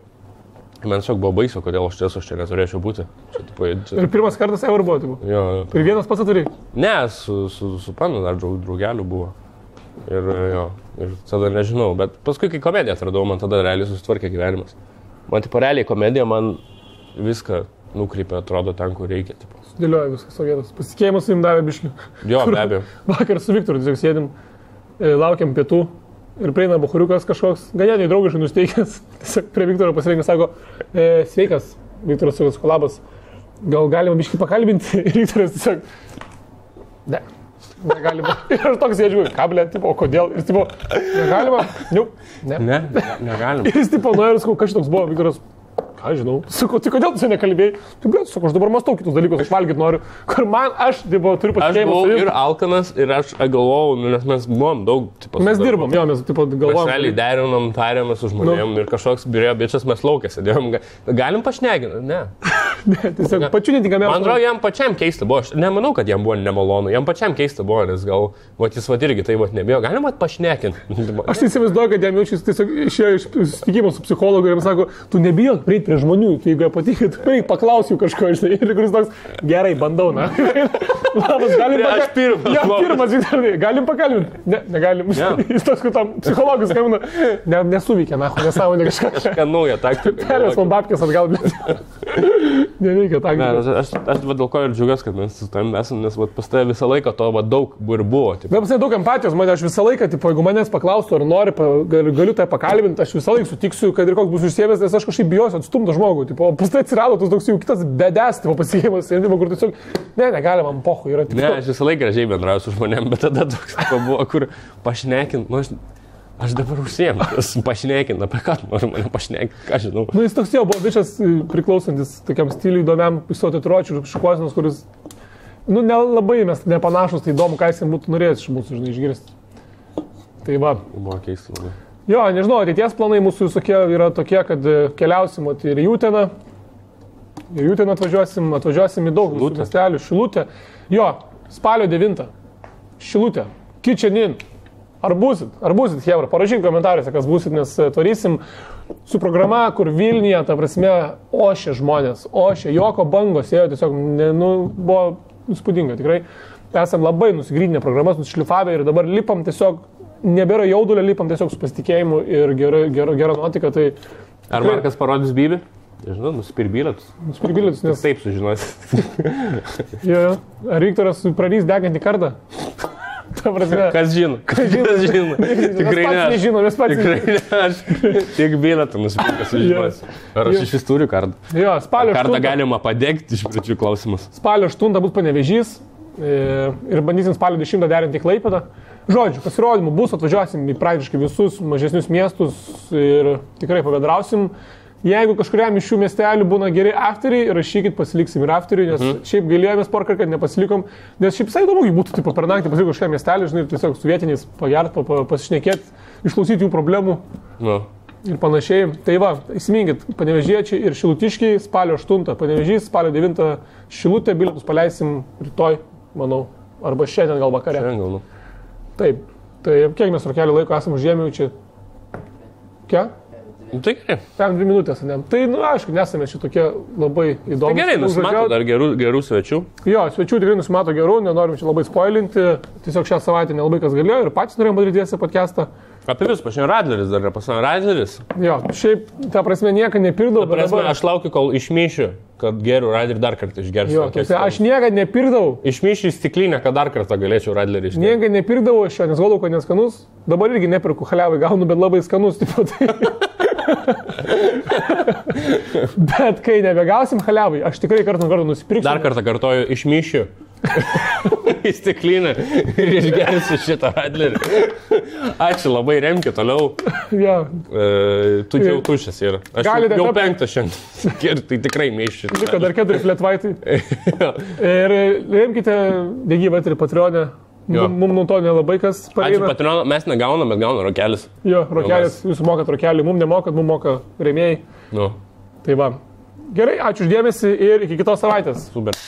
Man tiesiog buvo baisu, kodėl aš čia neturėčiau būti. Čia. Ir pirmas kartas ever buvo, tipo? Jo. Ir vienas pats atvarėjai? Ne, su panu dar draugelių buvo. Ir tada nežinau, bet paskui, kai komediją atradau, man tada realiai susitvarkė gyvenimas. Man tipo realiai komedija man viską nukreipia, atrodo, ten, kur reikia. Tipo. Dėlioja viskas savo vietos. Pasitikėjimas su jums davė biškių. Jo, be abejo. Vakar su Viktoru tiesiog sėdim, laukiam pietų ir prieina buchuriukas kažkoks, ganėtinai draugiškai nusteikęs. Tiesiog prie Viktoro pasirinkęs, sako, sveikas, Viktoras Sukas Kolabas, gal galima biškį pakalbinti? Ir Viktoras tiesiog, ne, negalima. Ir aš toks sėdžiu, kablė, tipo, o kodėl? Ir tipo, negalima? Jau, ne. Negalima. Ir jis tipo, nu ir sakau, kas toks buvo, Viktoras. Aš žinau. Sakau, tai kodėl tu nekalbėjai? Tai blėt, sakau, aš dabar mąstau kitus dalykus, aš valgyti noriu. Kur man, aš turiu pasitikėjimą. Aš buvau ir alkanas, ir aš galvojau, nes mes buvom daug, tipo, mes dirbom, jo, mes, tipo, galvojom. Mes realiai derinom, tarėmės su žmonėm ir kažkoks birėjo bičias, mes laukė sėdėjom. Galim pašnekinti? Ne. Ne, tiesiog pačiu netinkamiausiu. Man atrodo, jam pačiam keista buvo. Aš nemanau, kad jam buvo nemalonu. Jam pačiam keista buvo, nes gal, jis irgi tai nebijo. Galim pašnekinti. Aš įsivaizduoju, kad jam jaučiasi tiesiog išėjo iš susitikimo su psichologu ir jam sako, tu nebijok prieiti prie žmonių, tai jeigu patinka, tu paklausiu kažko, žinai, ir kuris toks, gerai, bandau, na. Labas, galim pakalbinti. Ja, pirmas, galim pakalbinti. Ne, negalim. Jis toks, kad tam psichologus skambina, nesuveikia, na, nesąmonė kažką. Kažką naują taktiką. Perės man babkės atgal, neveikia taktiką. Ne, aš dėl ko ir džiaugiuosi, kad mes su tavim esam, nes pas tave visą laiką to daug ir buvo. Bet pas daug empatijos, man aš visą laiką, tipo, jeigu manęs paklaustų, ar nori, galiu tai pakalbinti, aš visą laiką sutiksiu, kad ir koks bus užsiėmęs, nes aš kažkaip bijosiu atstumti žmogų. Tipo, pas tai atsirado tas toks jau kitas bedės, tipo, pasiėjimas, kur tiesiog, negalima, man pochu yra. Tipo. Ne, aš visą laiką gražiai bendrauju su žmonėm, bet tada toks buvo, kur pašnekint, nu, aš dabar užsiėmu, pašnekint, apie ką noriu mane pašnekint, ką žinau. Nu, jis toks jau buvo bičias priklausantis tokiam stiliui įdomiam, isotitruočių, šukuosinos, kuris, nu, nelabai mes nepanašus, tai įdomu, ką jis būtų norėjęs iš mūsų, žinai, išgirsti. Tai va. Buvo keista labai. Jo, nežinau, ateities planai mūsų visokie yra tokie, kad keliausim ir į Jūteną. Ir Jūteną atvažiuosim į daug miestelių. Šilutė. Jo, spalio 9. Šilutė. Kitchenin. Ar būsit, Hebra? Parašyk komentaruose, kas būsit, nes tvarysim su programa, kur Vilniuje, ta prasme, ošė žmonės. Ošė, joko bangos ėjo, tiesiog, buvo įspūdinga, tikrai. Esam labai nusigrydinę programas, nusišlifavę ir dabar lipam tiesiog, nebėra jaudulio, lipam tiesiog su pasitikėjimu ir gera nuotika. Tai... Ar Markas parodys Bybį? Žinau, nusipirbilėtus. Nes... Taip sužinosi. Jo. Ar Viktoras prarys degantį kartą? Ta prasme. Kas žino? Tikrai ne. Mes patys nežinome. Tikrai ne. Aš tiek bilietų nusipirkęs sužinosi. Ar aš iš vis turiu kartą? Jo, spalio 8. Kartą galima padegti iš pradžių klausimus. Spalio 8 bus Panevėžys ir bandysim spalio 10 derinti į Klaipėdą. Žodžiu, pasirodymų bus, atvažiuosim į praktiškai visus mažesnius miestus ir tikrai pabendrausim. Jeigu kažkuriam iš šių miestelių būna geri afteriai, rašykit, pasiliksim ir afteriai, nes šiaip gailėjomės porą, kad nepasilikom, nes šiaip visai įdomu būtų taip, per naktį pasilikti kažkokiam miestelį, žinai, tiesiog su vietiniais pagert, pasišnekėti, išklausyti jų problemų ir panašiai. Tai va, įsiminkit, Panevėžiečiai ir Šilutiškiai spalio 8, Panevėžys, spalio 9 Šilutė, bilietus paleisim rytoj, manau, arba šiandien gal vakare. Šiandien gal. Taip, tai kiek mes rokelį laiko esame užėmę čia? Kiek? Tai gerai. 2 minutės, ne? Tai, aišku, nesame šitokie labai įdomus. Tai gerai, nusimato dar gerų svečių. Jo, svečių tikrai nusimato gerų, nenorim čia labai spoilinti. Tiesiog šią savaitę nelabai kas galėjo ir patys norėjom padaryti tiesią podcastą. Apie vis, pažiūrėjau, Radleris dar yra pasakė, Radleris. Jo, šiaip, ta prasme, nieko nepirdau. Ta prasme, dabar... aš laukiu, kol išmyšiu, kad geriu Radlerį dar kartą išgersiu. Jo, aš niekad nepirdau. Išmyšiu į stiklinę, kad dar kartą galėčiau Radlerį išgerti. Niekad nepirdau aš jo, nes galvoju, kad neskanus. Dabar irgi nepirku, haliavai gaunu, bet labai skanus. Tipo, tai... Bet kai nebegausim haliavai, aš tikrai kartą nusipirksiu. Dar kartą kartoju, išmyšiu į stiklinę ir išgersiu šitą Radlerį. Ačiū labai, remki toliau. Ja. Tu jau tušęs yra. Aš galite jau 5 šiandien. Tai tikrai mėšiu. Liko dar 4 fletvaitai. Ir remkite Degyvą ir Patreonę. Mums nuo to nelabai kas pareina. Ačiū Patreoną, mes negaunam, bet gaunam rokelis. Jo, rokelis, jūs mokat rokelį, mums nemokat, mums moka rėmėjai. Nu. Tai va. Gerai, ačiū uždėmesi ir iki kitos savaitės. Super.